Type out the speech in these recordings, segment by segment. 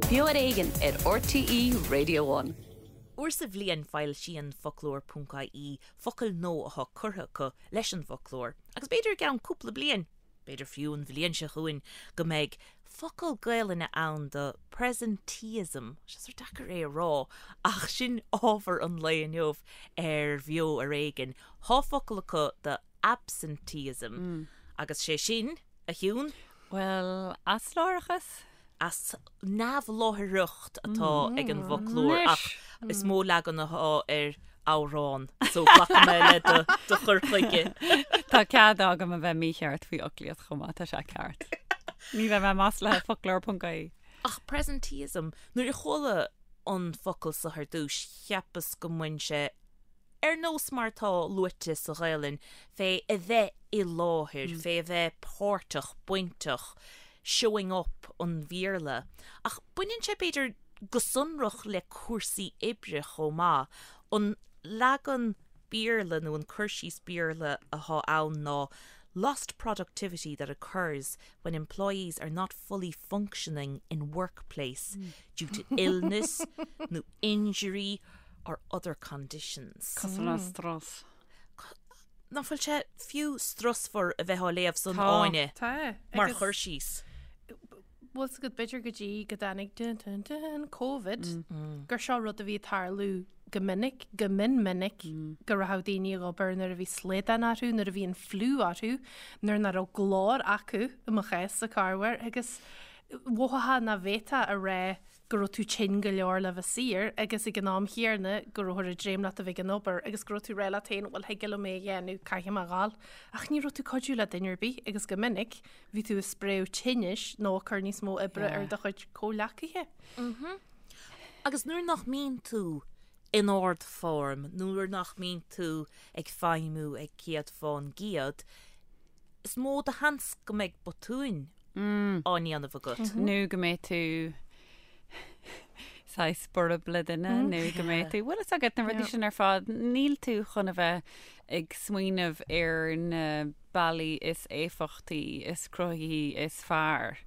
Beo ar Éigean ar RTÉ Radio One. Uair sa bhliain foilsíonn Foclóir.ie focail nua atá curtha acu leis an bhfoclóir agus b'fhéidir i gceann cúpla bliain, b'fhéidir fiú an bhliain seo chugainn, go mbeidh focal Gaelainne ann do presenteeism, tá sé sórt deacair é a rá ach sin ábhar an lae inniu ar Bheo ar Éigean. Tá focal acu do absenteeism agus sé sin, a Shiún? Bhuel, asláithreachas? As neamhláithreacht atá ag an bhfoclóir ach is mó leagan atá ar amhrán so glacfaidh mé le do chur chuige. Tá cead agam a bheith mícheart faoi fhoclaíocht chomh maith, tá sé ceart. Ní bheidh mé maslaithe foclóir.ie. Ach presenteeism, nuair a chuala an focal so ar dtús cheapas go mbain sé ar nós mar atá luaite sa Ghaelainn, fé a bheith i láthair, fé a bheith páirteach, bainteach, showing up an Bhéarla. Ach baineann sé b'fhéidir go sonrach le cúrsaí oibre chomh maith. An leagan Béarla nó an cur síos Béarla atá ann ná lost productivity that occurs when employees are not fully functioning in workplace due to illness nó injury or other conditions. Cosúil le strus. Nach bhfuil sé fiú strusmhar a bheith á léamh san Tá. Áine Tá. mar Agus chur síos. Bhfuil 's agat b'fhéidir go dtí go dtáinig dun dun dun Covid gur seo rud a bhí ag tarlú go minic, go mion minic, go raibh daoine ag obair nuair a bhí slaghdán orthu, nuair a bhí an fliú orthu, nuair nach raibh glór acu i mo chás sa corruair agus mhothófá nach bhféadfá a rá go raibh tú tinn go leor le bheith saor agus ag an am chéanna go rabhthar ag dréim leat a bheith ag an obair agus go raibh tú ag rá leat féin bhuel thig liom é a dhéanamh, caithfidh mé a ghabháil. Ach ní raibh tú ag cuidiú le duine ar bith agus go minic bhí tú ag spréadh tinnis nó ag cur níos mó oibre ar do chuid comhghleacaithe. Agus nuair nach mbíonn tú in ardfhoirm, nuair nach mbíonn tú ag feidhmiú ag 100%, is mó de sheans go mbeidh botúin á ndéanamh agat. Nó go mbeidh tú saghas borb le duine nó go mbeidh tú, bhfuil fhios agat na rudaí sin ar fad, níl tú chun a bheith ag smaoineamh ar na bealaí is éifeachtaí, is cruthaithí, is fearr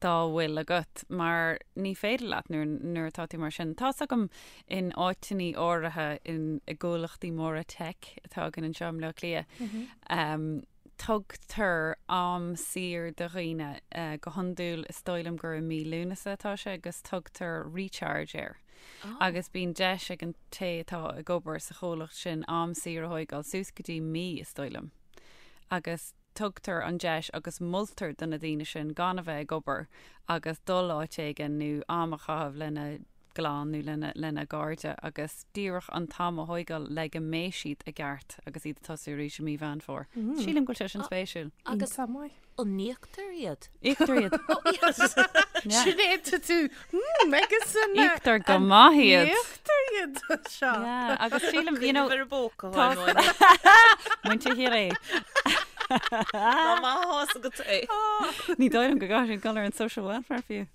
dá bhfuil agat mar ní féidir leat nuair, nuair atá tú mar sin. Tá's agam in áiteannaí áirithe in, i gcomhlachtaí móra tech atá againn anseo i mBleá Cliath, um, tugtar am saor do dhaoine, go hiondúil is dóigh liom gur i mí Lúnasa atá sé agus tugtar recharge air. Agus bíonn deis ag an té atá ag obair sa chomhlacht sin am saor a thóigeáil suas go dtí mí is dóigh liom. Agus tugtar an deis agus moltar do na daoine sin gan a bheith ag obair agus dul áit éigin nó am a chaitheamh lena gclann nó lena lena gcairde agus díreach an t-am a thóigeáil le go mbeidh siad i gceart agus iad ag tosú arís i mí Mheán Fómhair. Sílim go bhfuil sé sin spéisiúil. Agus Iontach maith. an n-íoctar iad? Íoctar iad. Sin é tá tú agus an Íoctar go maith iad. Íoctar iad seo. Yeah, agus sílim, you know, Ar an bpóca Tá- Muintir Chiarraí. Ná maith agat é. Ní dóigh liom go gcaithfidh siad dul ar an social welfare fiú.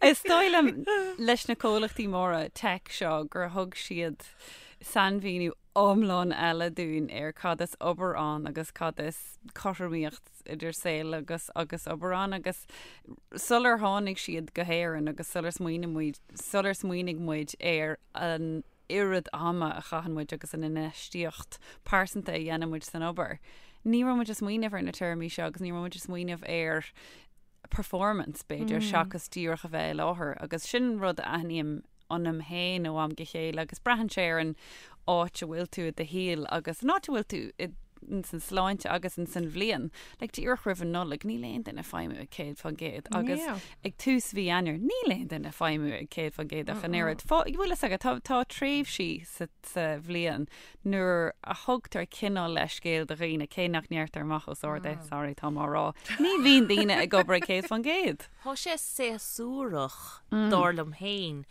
Is dóigh liom leis na comhlachtaí móra tech seo gur thug siad sainmhíniú iomlán eile dúinn ar cad is obair ann agus cad is cothromaíocht idir saol agus agus obair ann agus sular tháinig siad go hÉirinn agus sular smaoinigh muid sular smaoinigh muid ar an oiread ama a chaitheann muid agus an infheistíocht pearsanta a dhéanann muid san obair, ní raibh muid ag smaoineamh ar na téarmaí seo agus ní raibh muid ag smaoineamh ar performance, b'fhéidir, seachas díreach a bheith i láthair. Agus sin rud a aithním ionam féin ó am go chéile agus braitheann sé ar an áit a bhfuil tú i do shaol agus an áit a bhfuil tú i ins an sláinte agus ins an bhliain. Like, díreach roimh an Nollaig, níl aon duine ag feidhmiú ag 100% agus Yeah. ag tús mhí Eanáir, níl aon duine ag feidhmiú ag 100% ach an oiread. Fá, bhfuil fhios agat, tá, tá tréimhsí sa, sa bhliain nuair a thugtar cineál leithscéal do dhaoine, cé nach ndeirtear amach os ard é, sorry, táim á rá, ní bhíonn daoine ag obair ag 100%. Tá sé séasúrach, dar liom féin,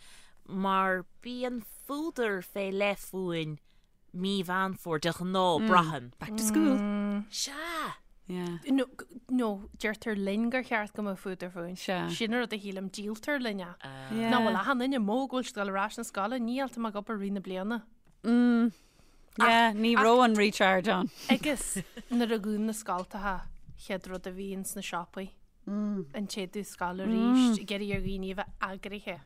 mar bíonn fuadar fé leith fúinn mí Mheán Fómhair de ghnáth, braithim. Back to school. Sea! Yeah. No, no, deirtear linn gur cheart go mbeadh fuadar fúinn. Sea. Sin an rud a shílim, díoltar linn é. Yeah. Nach bhfuil achan duine amuigh go bhfuil siad ag dul ar ais na scoile, ní fháiltear ag obair rith na bliana. Mm. Yeah, ní raibh an recharge ann. Agus nuair a dhún na scoltacha, chéad rud a bhíonn sna siopaí. An tséideadh scoil arís, ag iarraidh ar dhaoine a bheith eagraithe.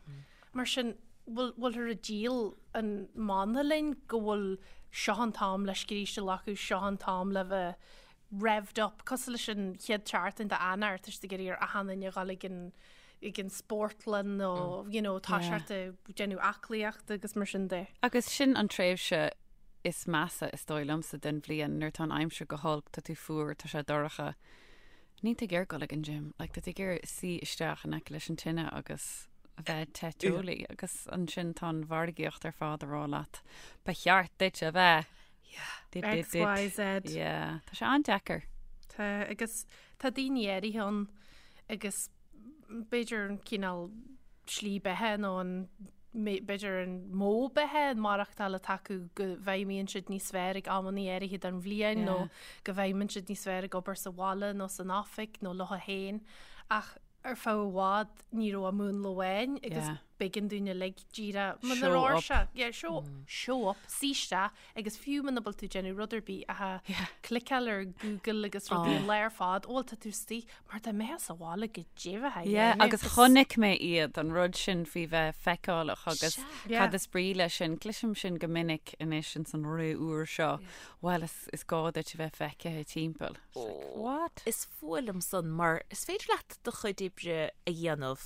Mar sin, bhfuil, bhfuilthear ag díol an mana linn go bhfuil seo an t-am le scríste a ghlacadh, seo an t-am le bheith revved up, cosúil leis an chéad tseachtain d'Eanáir, tá siad ag iarraidh ar achan duine a dhul ag an ag an spórtlann nó you know, tá siad ag déanamh aclaíochta agus mar sin de. Agus sin an tréimhse is measa is dóigh liomsa den bhliain nuair tá an aimsir go holc, tá tú fuar, tá sé dorcha. Níl tú ag iarraidh dul ag an gym, like tá tú ag iarraidh suí isteach in aice leis an tine agus a bheith te teolaí agus ansin tá an mhargaíocht ar fad a rá leat ba cheart duit a bheith Yeah. X, Y, Z. Yeah, tá sé an-deacair. Tá, agus tá daoine áirithe ann agus b'fhéidir an cineál slí beatha nó an b'fhéidir an modh beatha, an maireachtáil atá acu go bhfeidhmíonn siad níos fearr ag amanna áirithe den bhliain nó go bhfeidhmíonn siad níos fearr ag obair sa bhaile nó san oifig nó leo féin. Ach ar feadh i bhfad ní raibh ach múnla amháin agus b'éigean dúinn uilig díreach muna raibh sé, yeah, show, show up, suí isteach agus fiú muna bhfuil tú ag déanamh rud ar bith ach cliceáil ar Google agus rudaí an lá ar fad, ó bhuel tá tú istigh mar dá mbeifeá sa bhaile go deimhin Yeah, agus chonaic mé iad, an rud sin faoi bheith feiceálach agus cad is brí leis sin, cloisim sin go minic anois ins an ré úr seo, bhuel is, is gá duit a bheith feicthe timpeall. It's like, what? Is fuath liom san mar is féidir leat do chuid oibre a dhéanamh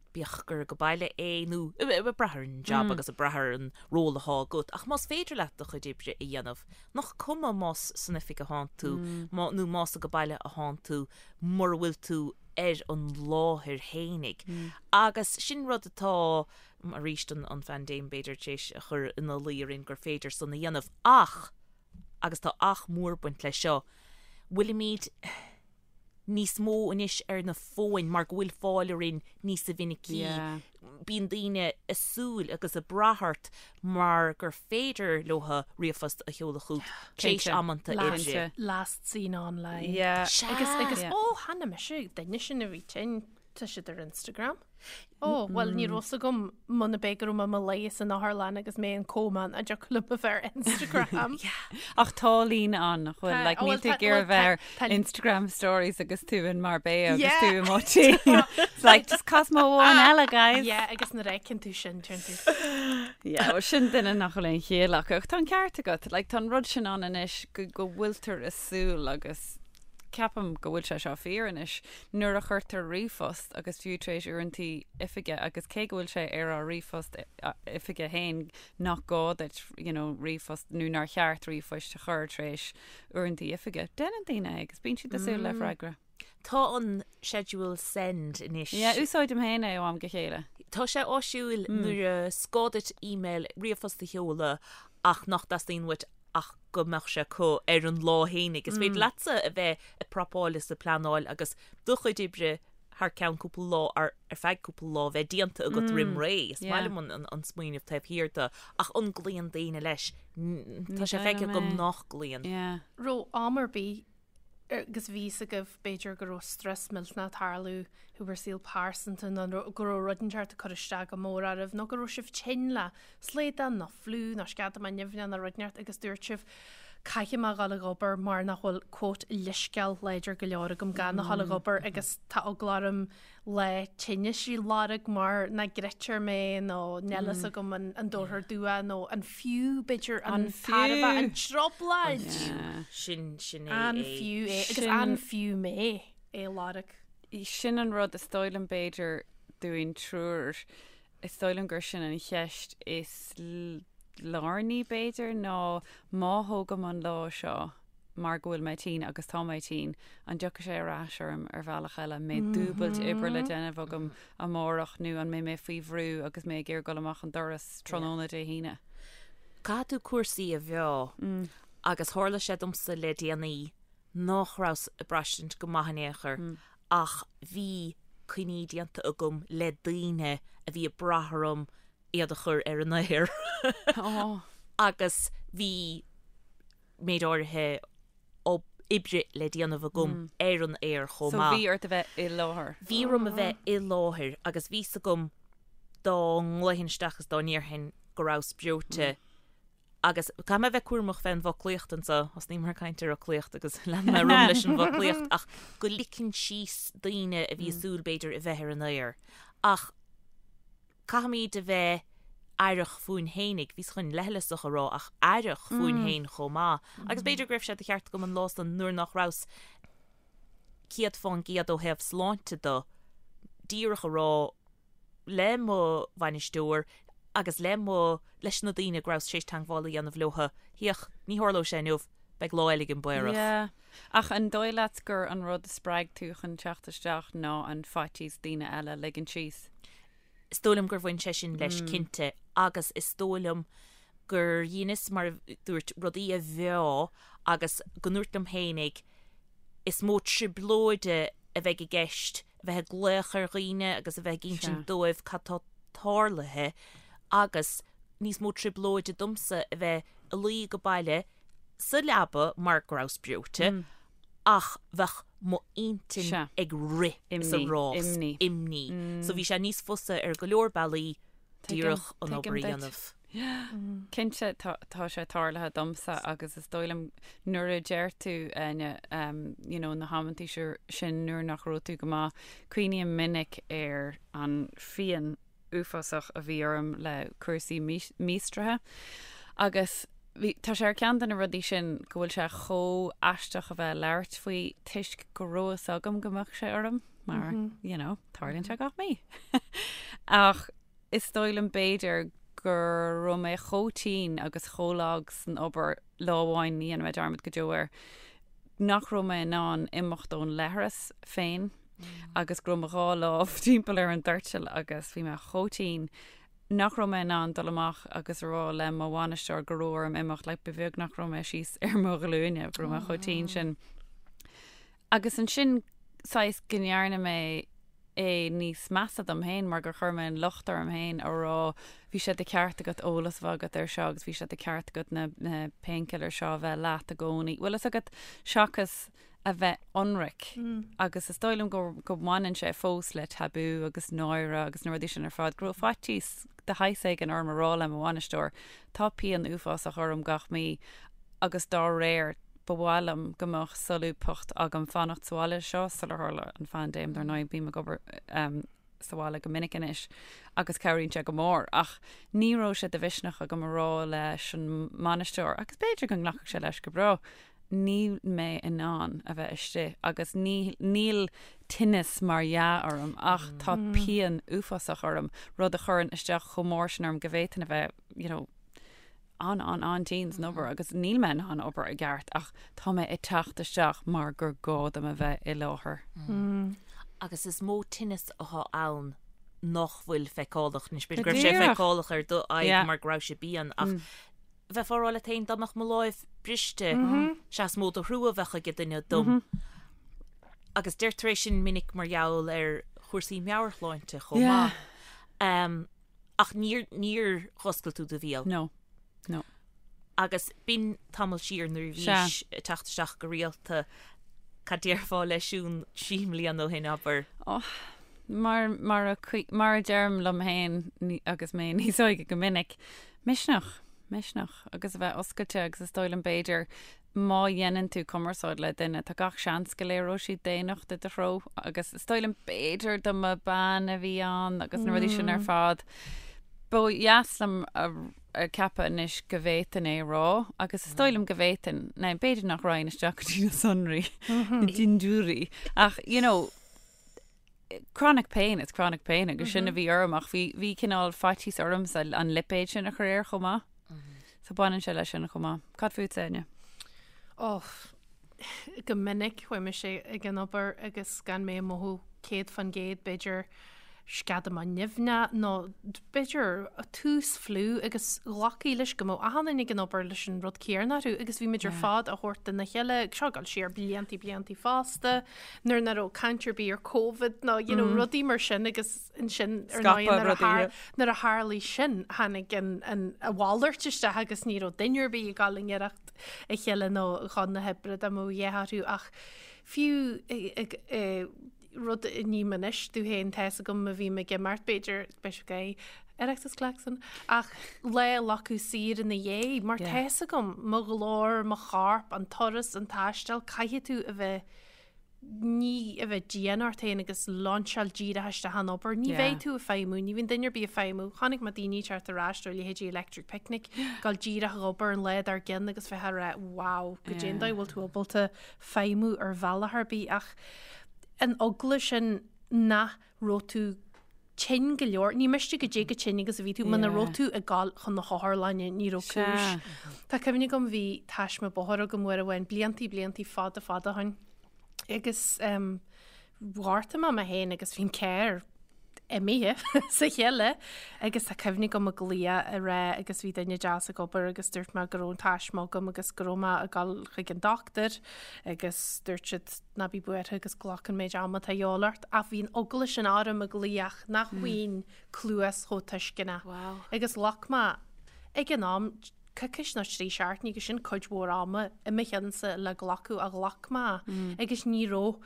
bíodh gur ag baile é nó ag brath ar an jab agus ag brath ar an ról atá agat, ach más féidir leat do chuid oibre a dhéanamh, nach cuma más san oifig atánn tú nó más ag baile atánn tú mura bhfuil tú ar an láthair fhéinig. Agus sin rud atá, arís, an phaindéim b'fhéidir tar éis a chur ina luí orainn gur féidir san a dhéanamh ach, agus tá ach mór ag baint leis seo, bhfuilimid, níos mó anois ar na fóin mar go bhfuil fáil orainn níosa mhinicí. Bíonn daoine ag súil agus ag brath ort mar gur féidir leo ríomhphost a sheoladh chugat tar éis amanta oibre. Last seen online. Agus agus ó chonaic mise duine sin a bhí tinn tá siad ar Instagram. Ó, bhuel, ní raibh fhios agam muna b'é go raibh mé i mo luí san otharlann agus mé in coma an dtiocfadh liom a bheith ar Instagram. Ach tá líne ann, nach bhfuil? Like, níl tú ag iarraidh bheith ar Instagram stories agus tú in Marbella agus tú i Motín. It's like, just Cosmo amháin eile, guys. Yeah, agus nuair a fheiceann tú sin, deireann tú. Yeah, well, sin duine nach bhfuil aon chiall acu. Ach tá an ceart agat. Like, tá an rud sin ann anois go go bhfuiltear ag súil agus ceapaim go bhfuil sé seo fíor anois, nuair a chuirtear ríomhphost, agus fiú tar éis uaireantaí oifige, agus cé go bhfuil sé ar ár ríomhphost oifige féin nach gá duit you know ríomhphost nó nár cheart ríomhphoist a chur tar éis uaireantaí oifige, déanann daoine é agus bíonn siad ag súil le freagra. Tá an schedule send anois. Yeah, úsáidim féin é ó am go chéile. Tá sé áisiúil nuair is gá duit email, ríomhphost a sheoladh ach nach dteastaíonn uait ach go mbeadh sé acu ar an lá fhéinig. Is féidir leatsa a bheith ag prapáil is ag pleanáil agus do chuid oibre thar ceann cúpla lá, ar feadh cúpla lá, bheith déanta agat roim ré. Is maith liom an smaoineamh taobh thiar de. Ach an gcloíonn daoine leis? Tá sé feicthe agam nach gcloíonn. Raibh am ar bith agus bhí fhios agaibh b'fhéidir go raibh strus millteanach ag tarlú i bhur saol pearsanta nó go raibh rud inteacht ag cur isteach go mór oraibh nó go raibh sibh tinn le slaghdán nó fliú nó sceadamán nimhneach nó rud inteacht agus dúirt sibh caithfidh mé a dhul ag obair mar nach bhfuil quote leithscéal láidir go leor agam gan a dhul ag obair agus tá eagla orm lá tinnis a lorg mar nach gcreidtear mé nó níl fhios agam an dtabharfar dua nó an fiú b'fhéidir an tairbhe an trioblóid. Sin sin é An fiú é agus an fiú mé é a lorg. Sin an rud is dóigh liom b'fhéidir dúinn triúr, is dóigh liom gur sin an cheist is lárnaí b'fhéidir ná má thógaim an lá seo, mar go bhfuil mé tinn agus tá mé tinn, an dtiocfaidh sé ar ais orm ar bhealach eile? An mbeidh dúbailt oibre le déanamh agam amárach nó an mbeidh mé faoi bhrú agus mé ag iarraidh dul amach an doras tráthnóna Dé hAoine? Caithfidh tú cúrsaí a mheá agus tharla sé domsa le déanaí nach rabhas ag braistint go maith in aon chor ach bhí coinní déanta agam le daoine a bhí ag brath orm iad a chur ar an aer agus bhí méid áirithe oibre le déanamh agam ar an aer chomh maith. So bhí ort a bheith i láthair. Bhí orm a bheith i láthair agus bhí 's agam dá nglaofainn isteach is dá ndéarfainn go rabhas breoite. Agus caithfidh mé a bheith cúramach fén bhfoclaíocht anso, thosnaíomar ag caint ar fhoclaíocht agus lean mé romham leis an bhfoclaíocht, ach go ligeann síos daoine a bhí ag súil b'fhéidir a bheith ar an aer. Ach caithfimid a bheith aireach fúinn fhéinig, bhíos chun leithleasach a rá ach aireach fúinn féin chomh maith. Agus b'fhéidir go raibh sé de cheart agam an lá san nuair nach rabhas 100% ó thaobh sláinte de, díreach a rá, le mo bhainisteoir agus le mo, leis na daoine go rabhas tar éis teagmháil a dhéanamh leotha, féach, ní tharlóidh sé inniu, beidh lá eile againn amárach. Yeah. Ach an dóigh leat gur an rud a spreag tú chun teacht isteach ná an faitíos daoine eile a ligean síos? Is dóigh liom gur bhain sé sin leis cinnte agus is dóigh liom gur dheineas, mar a dúirt, rudaí a mheá agus go ndúirt liom fhéinig, is mó trioblóide a bheidh i gceist a bheith ag glaoch ar dhaoine agus a bheith ag insint dóibh cad tá tarlaithe agus níos mó trioblóide domsa a bheith ag luí ag baile sa leaba mar go rabhas breoite ach bheadh mo intinn ag rith is ag rás, imní. So bhí sé níos fusa ar go leor bealaí díreach an obair a dhéanamh. Cinnte, tá sé tarlaithe domsa agus is dóigh liom nuair a deir tú, Áine, you know, na hamantaí sin nuair nach raibh tú go maith, cuimhním minic ar an phian uafásach a bhí orm le cúrsaí míostraithe agus bhí, tá sé ar ceann de na rudaí sin go bhfuil sé chomh aisteach a bheith ag labhairt faoi toisc go raibh fhios agam go mbeadh sé orm mar, you know, tarlaíonn sé gach mí. Ach Is dóigh liom b'fhéidir go raibh mé chomh tinn agus chomh lag san obair lá amháin, ní dhéanfaidh mé dearmad go deo air, nach raibh mé in ann imeacht ón leithreas féin agus go raibh mo dhá lámh timpeall ar an doirteal agus bhí mé chomh tinn nach raibh mé in ann dul amach agus a rá le mo bhainisteoir go raibh orm imeacht, like ba bheag nach raibh mé síos ar mo ghlúine, go raibh mé chomh tinn sin. Agus ansin saghas go ndearna mé é níos measa dom féin mar gur chuir mé an locht orm féin a rá bhí sé de cheart agat eolas a bheith agat ar seo agus bhí sé de cheart agat na na painkillers seo a bheith leat i gcónaí. Bhfuil fhios agat seachas a bheith ionraic agus is dóigh liom go go mbaineann sé fós le tabú agus náire agus na rudaí sin ar fad go raibh faitíos de shaghas éigin orm a rá le mo bhainisteoir tá pian uafásach orm gach mí agus dá réir Ba mhaith liom go mbeadh solúbthacht agam fanacht sa bhaile seo sular tharla an phaindéim, dar ndóigh bím ag obair sa bhaile go minic anois agus cabhraíonn sé go mór ach ní raibh sé de mhisneach agam a rá leis an mbainisteoir agus b'fhéidir go nglacfadh sé leis go breá níl mé in ann a bheith istigh agus ní níl tinneas mar dhea orm ach tá pian uafásach orm, rud a chuireann isteach chomh mór sin orm go bhféadfainn a bheith you know, an-an-an-tinn san obair agus níl mé in ann obair i gceart ach tá mé ag teacht isteach mar gur gá dom a bheith i láthair. Agus is mó tinneas atá ann nach bhfuil feiceálach. Anois b'fhéidir go raibh sé feiceálach ar do aghaidh mar go raibh sé pian ach bheifeá ag rá leat féin dá mbeadh mo láimh briste, sea is mó de thrua a bheadh ag duine dom. Agus deirtear é sin minic mar gheall ar chúrsaí meabhairshláinte chomh maith. Ach níor, níor dh'oscail tú do bhéal. No. No. Agus b'in tamall siar nuair a bhís ag teacht isteach go rialta, cad déarfá le Siún 3 mbliana ó shin, abair? Oh, mar, mar a, mar a deirim liom féin agus mé níos óige go minic, misneach, misneach agus a bheith oscailte agus is dóigh liom b'fhéidir má dhéanann tú cumarsáid le duine, tá gach seans go léireoidh siad daonnacht i do threo agus is dóigh liom b'fhéidir dá mba bean a bhí ann agus na rudaí sin ar fad. Ba dheas liom a ceapadh anois go bhféadfainn é a rá agus is dóigh liom go bhféadfainn, now b'fhéidir nach raghainn isteach go dtí na sonraí, na dindiúirí ach you know, chronic pain is chronic pain agus sin a bhí orm ach bhí bhí cineál faitíos ormsa an lipéad sin a chur air chomh maith. So baineann sé leis sin chomh maith. Cad fútsa, Áine? Oh, go minic chuaigh mise ag an obair agus gan mé ag mothú 100% b'fhéidir sceadamán nimhneach nó b'fhéidir tús fliú agus ghlacfaí leis go mbeadh achan duine ag an obair leis an rud céanna orthu agus bhí muid ar fad á thabhairt dona chéile, seo ag dul siar bliantaí bliantaí fosta, nuair nach raibh caint ar bith ar Covid nó you know rudaí mar sin agus ansin ar ndóigh nuair a thar nuair a tharlaigh sin tháinig an an a mhalairt isteach agus ní raibh duine ar bith ag dul i ngiorracht a chéile nó chun na hoibre dá mbeadh a dhath orthu ach fiú ag rud a ním anois domh féin tá's agam má bhím ag imeacht b'fhéidir beidh sé Oireachtas Klaxon, ach lá a ghlacadh saor ina dhiaidh, mar tá fhios agam, mo ghlór, mo chorp, an turas, an taisteal, caithfidh tú a bheith, ní a bheith dian ort féin agus lainseáil díreach isteach an obair. Ní bheidh tú ag feidhmiú, ní bhíonn duine ar bith ag feidhmiú. Chonaic mé daoine ag teacht ar ais ó leithéidí Electric Picnic, gabháil díreach ag obair an lá dár gcionn agus bheith ag rá, wow, goidé an dóigh a bhfuil tú ábalta feidhmiú ar bhealach ar bith ach an eagla sin nach raibh tú tinn go leor. Ní miste goidé chomh tinn agus a bhí tú, muna raibh tú ag gabháil chun na hotharlainne, ní raibh cúis. Tá cuimhne agam bhí taisme bóthair agam uair amháin, bliantaí, bliantaí fada, fada ó shin. Agus ghortaigh mé mé féin agus bhí an carr imithe sa chille agus tá cuimhne agam ag glaoch a rá agus bhí duine deas ag obair agus dúirt mé go raibh an taisme agam agus go raibh mé ag dul chuig an dochtúir agus dúirt siad ná bí buartha agus glac an méid ama atá a dhíobháil ort, ach bhí an eagla sin orm ag glaoch nach bhfaighinn cluas chomh tuisceanach. Wow. Agus ghlac mé, ag an am, coicís nó 3 seachtainí agus sin cuid mhór ama i mo cheannsa le glacadh a ghlac mé agus ní raibh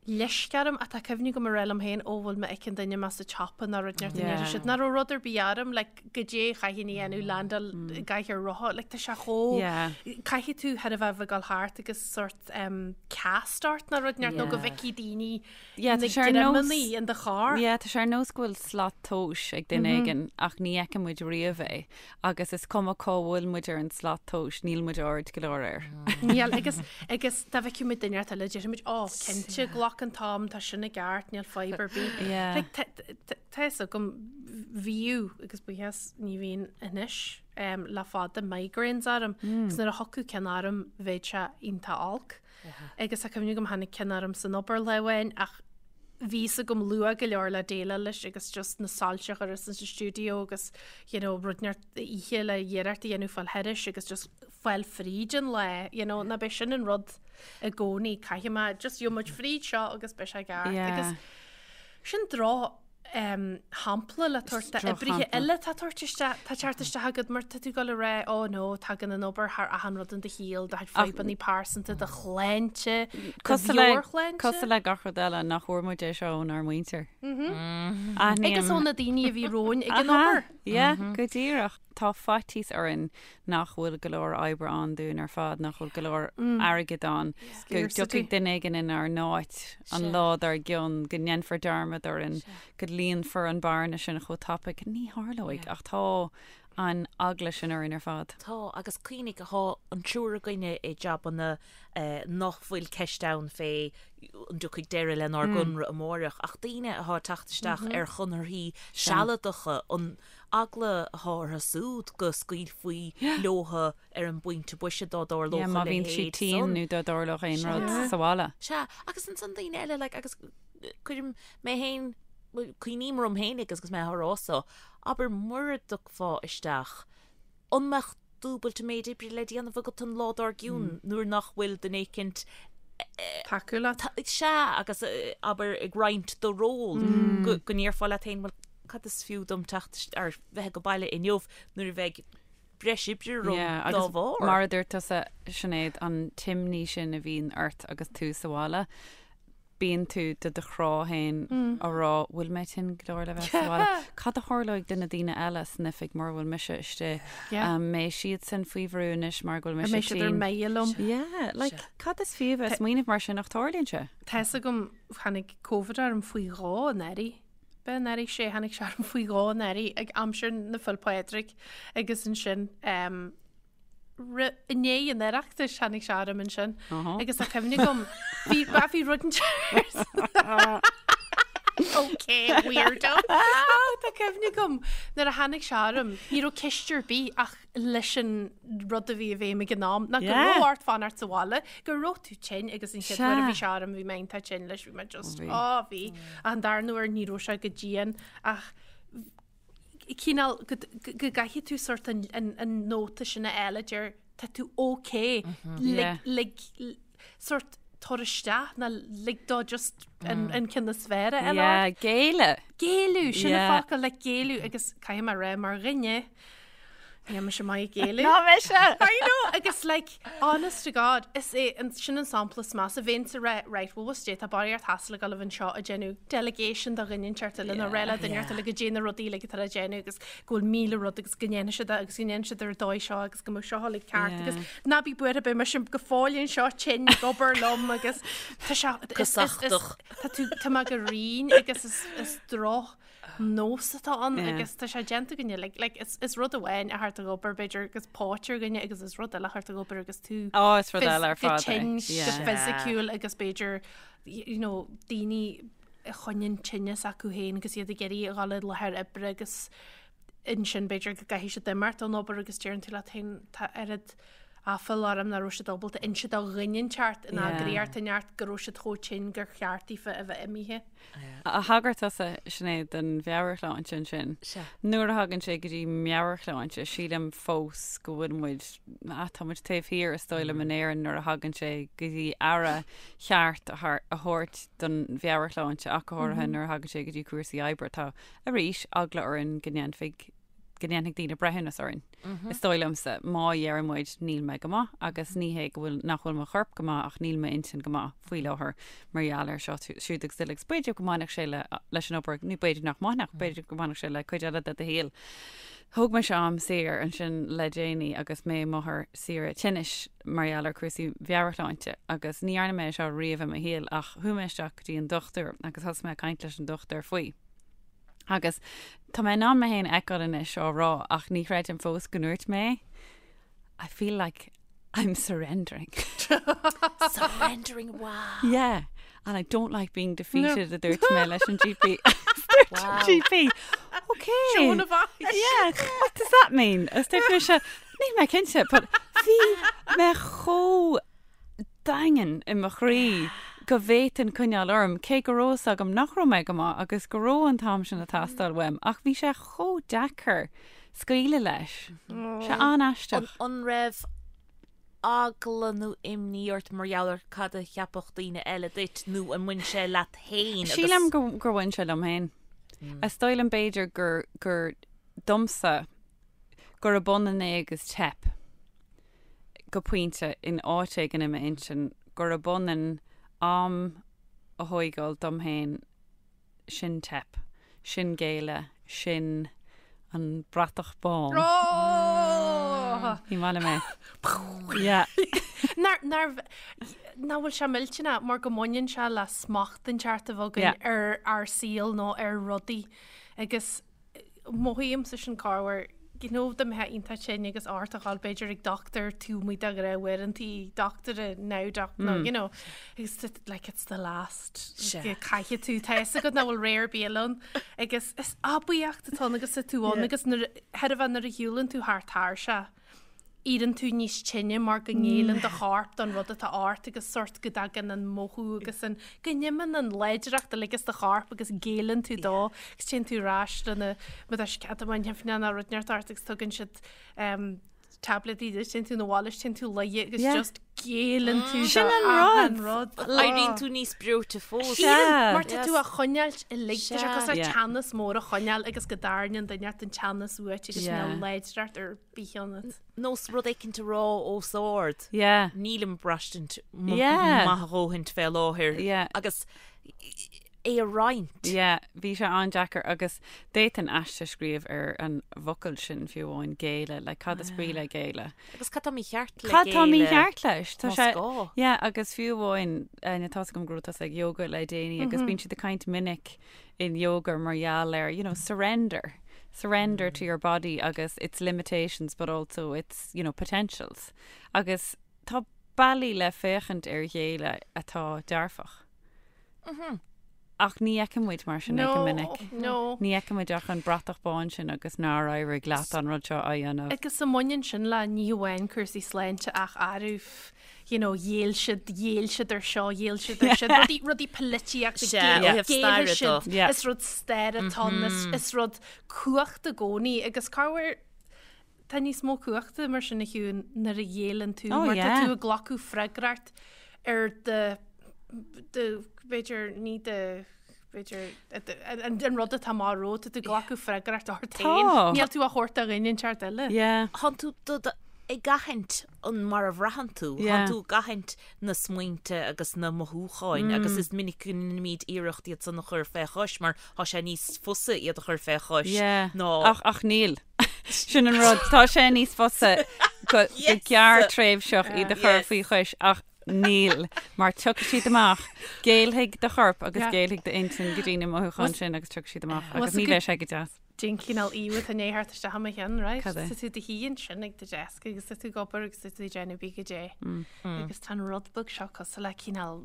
leisce orm ach tá cuimhne agam a rá liom féin ó bhfuil mé ag an duine mé sa tsiopa nó rud inteacht yeah. siad nach raibh rud ar bith orm like, goidé chaithfinn a dhéanamh landáil i gcathaoir rotha like, tá sé chomh Yeah. caithfidh tú thar a bheith ag dul thart agus sort cast ort nó rud inteacht nó go bhfeicfidh daoine Yeah, na tá sé ar nós- greamannaí in do charr. Yeah, tá sé ar nós go bhfuil slat tomhais ag duine éigin ach ní fheiceann muid riamh é agus is cuma cá bhfuil muid ar an slat tomhais, níl muid ard go leor air. Níl agus agus dá bhfeicfeadh muid duine eile déarfaidh muid ó cinnte glac an t-am tá sin i gceart níl fadhb ar bith. Yeah. Like, tá- tá- tá fhios agam bhíodh agus buíochas ní bhíonn anois. le fada migraines orm agus nuair a thiocfadh ceann orm bheadh sé iontach olc. Agus tá cuimhne agam tháinig ceann orm san obair lá amháin ach bhí fhios agam luath go leor le déileáil leis agus just na soilse a chur sa stiúideo agus you know, rud inteacht oíche le iarracht a dhéanamh fáil thairis agus just fáil fríd an lá, you know, ná beidh sin an rud i gcónaí caithfidh mé just gheobhaidh muid fríd seo agus beidh sé ceart Yeah. agus sin droch shampla le tabhairt d'oibrithe eile tá tabhairt isteach, tá teacht isteach agat mar tá tú ag dul a rá, ó no, tagann an obair thar achan rud in do shaol, do chuid fadhbanna pearsanta, do shláinte, do mheabhairshláinte. Cosúil le gach rud eile, nach bhfuair muid é seo ónár muintir. Agus ó na daoine a bhí romhainn ag an obair. Yeah, go díreach. Tá faitíos orainn nach bhfuil go leor oibre ann dúinn ar fad, nach bhfuil go leor airgid ann, go dtiocfaidh duine éigin inár n-áit an lá dár gcionn, go ndéanfar dearmad orainn, go líonfar an bearna sin chomh tapaidh. Ní tharlóidh, ach tá an eagla sin orainn ar fad. Tá, agus cuimhnigh, tá an triúr againne i jabanna nach bhfuil ceist ann fé an dtiocfaidh deireadh lenár gconradh amáireach, ach daoine atá ag teacht isteach ar chonarthaí sealadacha, an eagla atá orthu súd go scaoilfí leotha ar an bpointe boise dá dtarlódh Yeah, a má bhíonn siad leithéid tinn san. nó dá dtarlódh aon rud Sea. sa bhaile. Sea, agus ansan daoine eile, like, agus cuirim mé féin, bhuel, cuimhním orm féin agus agus mé á rá so, abair mura dtiocfá isteach, an mbeadh dúbailt an méid oibre le déanamh agat an lá dár gcionn nuair nach bhfuil duine éicint Tacú leat. Sea, agus abair ag roinnt do ról, go ndéarfá leat féin, bhuel, cad is fiú dom teacht ar bheith ag baile inniu nuair a bheidh breis oibre romham Yeah, dá agus bharr. mar a dúirt tusa, Sinéad, an t-imní sin a bhíonn ort agus tú sa bhaile, bíonn tú do do chrá féin á rá, bhfuil mé tinn go leor le bheith sa bhaile? Cad a tharlóidh do na daoine eile san oifig mura bhfuil mise istigh? Yeah. An mbeidh siadsan faoi bhrú anois mar go bhfuil An mise mbeidh siad ar tinn? mire liom? Yeah, like, cad is fiú bheith ag smaoineamh mar sin ach tarlaíonn sé. Tá fhios agam, tháinig Covid orm faoi dhó anuraidh. B'é anuraidh sé, tháinig sé orm faoi dhó anuraidh ag aimsir na Féile Pádraig agus ansin um, i ndiaidh an Oireachtais tháinig sé orm ansin agus tá cuimhne agam bhí bhí rud Ok, weirdo. Tá cuimhne agam nuair a tháinig sé orm ní raibh ceist ar bith ach leis an rud a bhí i bhfeidhm ag an am ná go raibh ort fanacht sa bhaile, go raibh tú tinn agus an chéad uair a bhí sé orm bhí mé iontach tinn leis bhí mé just á bhí an darna huair ní raibh sé go dian ach cineál go gcaithfidh tú sort an nóta sin a fháil a deir tá tú ok lig sort tabhair isteach ná lig dó just an ceann is fearr a fháil ort. Géilleadh. Géilleadh, sin an focal le géilleadh agus caithfidh mé a rá mar dhuine. Níl mise maith ag géilleadh. Ná mise! I know! Agus like, honest to God, is é an, sin an sampla is measa. Bheinnse ag rá, right, well what's tá barraíocht hassle ag dul anseo ag déanamh delegation do dhuine inteacht eile nó rá le duine inteacht eile goidé na rudaí uilig atá le déanamh agus go bhfuil 1000 rud agus go ndéanfaidh siad é agus go ndéanfaidh siad ar an dóigh seo agus go mbeidh seo uilig ceart agus ná bí buartha beidh mise go fóill anseo tinn ag obair liom agus tá sé is, is, is, tá tú, tá mé go righin agus is, is droch nós atá ann agus tá sé déanta againne like, like, is, is rud amháin a theacht ag obair b'fhéidir agus póit ar dhuine agus is rud eile a theacht ag obair agus tú Ó, is rud eile ar go fad é. tinn go Yeah. fisiciúil agus b'fhéidir you know, daoine a choinníonn tinneas acu féin agus iad ag iarraidh a dhul i láthair oibre agus ansin b'fhéidir go gcaithfidh siad imeacht ón obair agus deireann tú leat féin tá oiread aiféala orm nach raibh siad ábalta inse do dhuine inteacht in eagraíocht inteacht go raibh siad chomh tinn gur cheart daofa a bheith imithe. Thagair tusa, Sinéad, don mheabhairshláinte ansin. Sea. Nuair a thagann sé go dtí meabhairshláinte, sílim fós go bhfuil muid, ah, tá muid taobh thiar, is dóigh liom, in Éirinn nuair a thagann sé go dtí aire cheart a thabhairt don mheabhairshláinte ach go háirithe nuair a thagann sé go dtí cúrsaí oibre. Tá, arís, eagla orainn go ndéanfaidh go ndéanfaidh daoine breithiúnas orainn. Is dóigh liomsa, má dheireann muid níl mé go maith agus ní hé go bhfuil, nach bhfuil mo chorp go maith ach níl m'intinn go maith faoi láthair mar gheall ar seo, siúd agus uile agus b'fhéidir go mbainfeadh sé le, leis an obair, nó b'fhéidir nach mbainfeadh, b'fhéidir go mbainfeadh sé le cuid eile de do shaol. Thóg mise am saor ansin le déanaí agus mé i m'othar saoire tinnis mar gheall ar cúrsaí mheabhairshláinte agus ní dhearna mé é seo riamh i mo shaol ach chuaigh mé isteach go dtí an dochtúir agus thosaigh mé ag caint leis an dochtúir faoi. Agus tá mé in ann mé féin a fheiceáil anois á rá ach ní chreidim fós go ndúirt mé I feel like I'm surrendering. Surrendering, wow. Yeah. And I don't like being defeated, a dúirt mé leis an GP. Wow. GP. Okay. Joan of Arc. Yeah, what does that mean? Is dúirt mise, níl mé cinnte, but bhí mé chomh daingean i mo chroí go bhféadfainn coinneáil orm, cé go raibh fhios agam nach raibh mé go maith agus go raibh an t-am sin ag teastáil uaim, ach bhí sé chomh deacair scaoileadh leis. Sé an-aisteach. An raibh eagla nó imní ort mar gheall ar cad a cheapfadh daoine eile duit nó an mbain sé leat féin agus. Sílim gur bhain sé liom féin. Is dóigh liom b'fhéidir gur, gur domsa gurb ionann é agus teip. go pointe, in áit éigin i m'intinn, gurb ionann am a thóigeáil dom féin, sin teip, sin géilleadh, sin an bratach bán. Ní maith liom é. Yeah. Nach bhfuil sé millteanach mar go mbaineann sé le smacht inteacht a bheith againn ar ár saol nó ar rudaí agus Mothaímse sin corruair, you know, dá mbeifeá iontach tinn agus ort a dhul b'fhéidir ag dochtúir taobh amuigh de ghnáthuaireantaí dochtúra now doc nó you know agus like it's the last Sea. caithfidh tú tá fhios agat nach bhfuil ré ar bith eile ann agus is aibíocht atá ann agus tá tú ann agus nuair thairbhe nuair a shiúlann tú thar tairseach éiríonn tú níos tinne mar go ngéilleann do chorp don rud atá ort agus sórt go dtagann an mothú agus an, go n-imíonn an láidreacht uilig as do chorp agus géilleann tú dó agus téann tú ar ais lena, má tá sceitimíní nó rud inteacht ort agus tugann siad tabletí duit, téann tú 'na bhaile is téann tú luighe agus just géilleann tú Sin an rud. rud. Éiríonn tú níos breoite fós. Sea. Mar tá tú á choinneáilt uilig, tá sé cosúil le teannas mór a choinneáil agus go dtarraingíonn duine inteacht an teannas uait agus níl láidreacht ar bith ionat. Nós rud éicint a rá os ard. Yeah. Nílim ag braistint Yeah. maith a dhóthaint fé láthair. Yeah. Agus é a roinnt. Yeah, bhí sé an-deacair agus d'fhéadfainn aiste a scríobh ar an bhfocal sin fiú amháin, géilleadh, like cad is brí le géilleadh? Agus cad tá mícheart le Cad tá géilleadh? mícheart leis? Tá Más sé, gá. yeah, agus fiú amháin, eh, tá's agam go raibh tusa ag yoga le déanaí agus bíonn siad ag caint minic in yoga mar gheall ar, you know, surrender, surrender to your body agus its limitations but also its, you know, potentials. Agus tá bealaí le féachaint ar ghéilleadh atá dearfach. Ach ní fheiceann muid mar sin é go minic. No. Ní fheiceann muid ach an bratach bán sin agus nár éirigh leat an rud seo a dhéanamh. Agus an mbaineann sin le ní hamháin cúrsaí sláinte ach arbh, you know, ghéill siad, ghéill siad ar seo, ghéill siad ar sin, rudaí, rudaí polaitíochta, Sea, ó thaobh staire géillfidh siad, de. Yeah. is rud staire atá ann, is, is rud cumhachta i gcónaí agus corruair tá níos mó cumhachta mar sin a Shiún nuair a ghéilleann tú, Oh, mar tá yeah. tú ag glacadh freagracht ar do, do, b'fhéidir ní do. B'fhéidir, an rud atá amach romhat, tá tú ag glacadh freagracht ort féin. Níl tú á thabhairt do dhuine inteacht eile. Tánn tú ag aithint an mar a bhraitheann tú, tánn tú ag aithint na smaointe agus na mothúcháin agus is minic go ndéanaimid iarracht iad san a chur fé chois mar tá sé níos fusa iad a chur fé chois ná. Ach níl. Sin an rud. Tá sé níos fusa go gearrtréimhseach iad a chur faoi chois ach Níl, mar tiocfaidh siad amach, géillfidh do chorp agus géillfidh d'intinn go dtí na mothúcháin sin agus tiocfaidh siad amach agus ní bheidh sé go deas. Cén cineál íomhá atá i ndiaidh theacht isteach i mo cheann, right? Cad é? Tá tú i do shuí ansin ag do deasc agus tá tú ag obair agus tá tú ag déanamh bí go dé. Agus tá an rud beag seo cosúil le cineál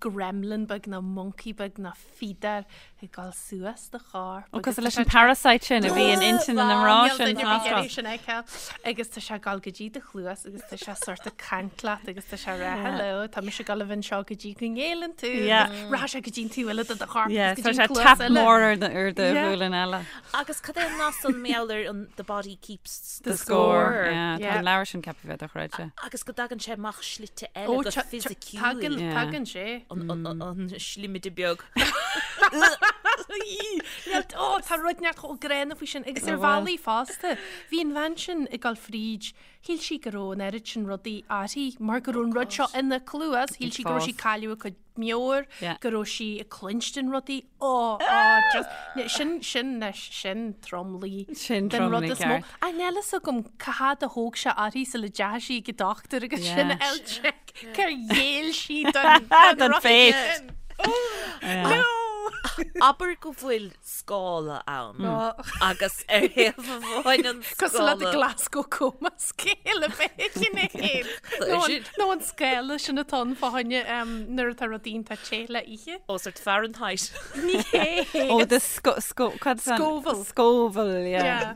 gremlin beag nó monkey beag nó feeder ag dul suas do chorp. Ó, cosúil leis an parasite sin a bhí in intinn na mná sin san Astráil. sin a fheiceáil. Agus tá sé ag dul go dtí do chluas agus tá sé sort ag caint leat agus tá sé ag rá hello, tá mise ag dul a bheith anseo go dtí go ngéilleann tú. Rachaidh sé go dtí an taobh eile de do chorp agus go dtí an cluas eile. Tap mór ar do ghualainn eile. Agus cad é an nath san mar gheall ar an the body keeps the score. Tá an leabhar sin ceaptha a bheith dochreidte. Agus go dtagann sé amach slite eile go fisiciúil. Tagann sé. An slimide beag. Ó, tá rud neart chomh gránna faoi sin agus ar bhealaí fosta. Bhí an bhean sin ag dul fríd, shíl sí go raibh an oiread sin rudaí uirthi mar go raibh an rud seo ina cluas, shíl sí go raibh sí ag cailleadh a cuid meabhair, go raibh sí ag cluinstin rudaí. Ó, ó, just, sin, sin, sin tromluí. Sin den rud is mó. Ach níl a fhios agam cá fhad a thóg sé uirthi sula dteachaigh sí ag an dochtúir agus sin a fháil check cár ghéill sí don don fate. No! Abair go bhfuil scála ann agus ar thaobh amháin an scála. Cosúil le the Glasgow Coma Scale a bheith ina thaobh. Nó an scála sin atá ann fá choinne nuair atá rudaí iontach te le ithe. Ó sort Fahrenheit. Ní hé. Ó the sco sco cad is Scoville. Scoville, yeah. Yeah.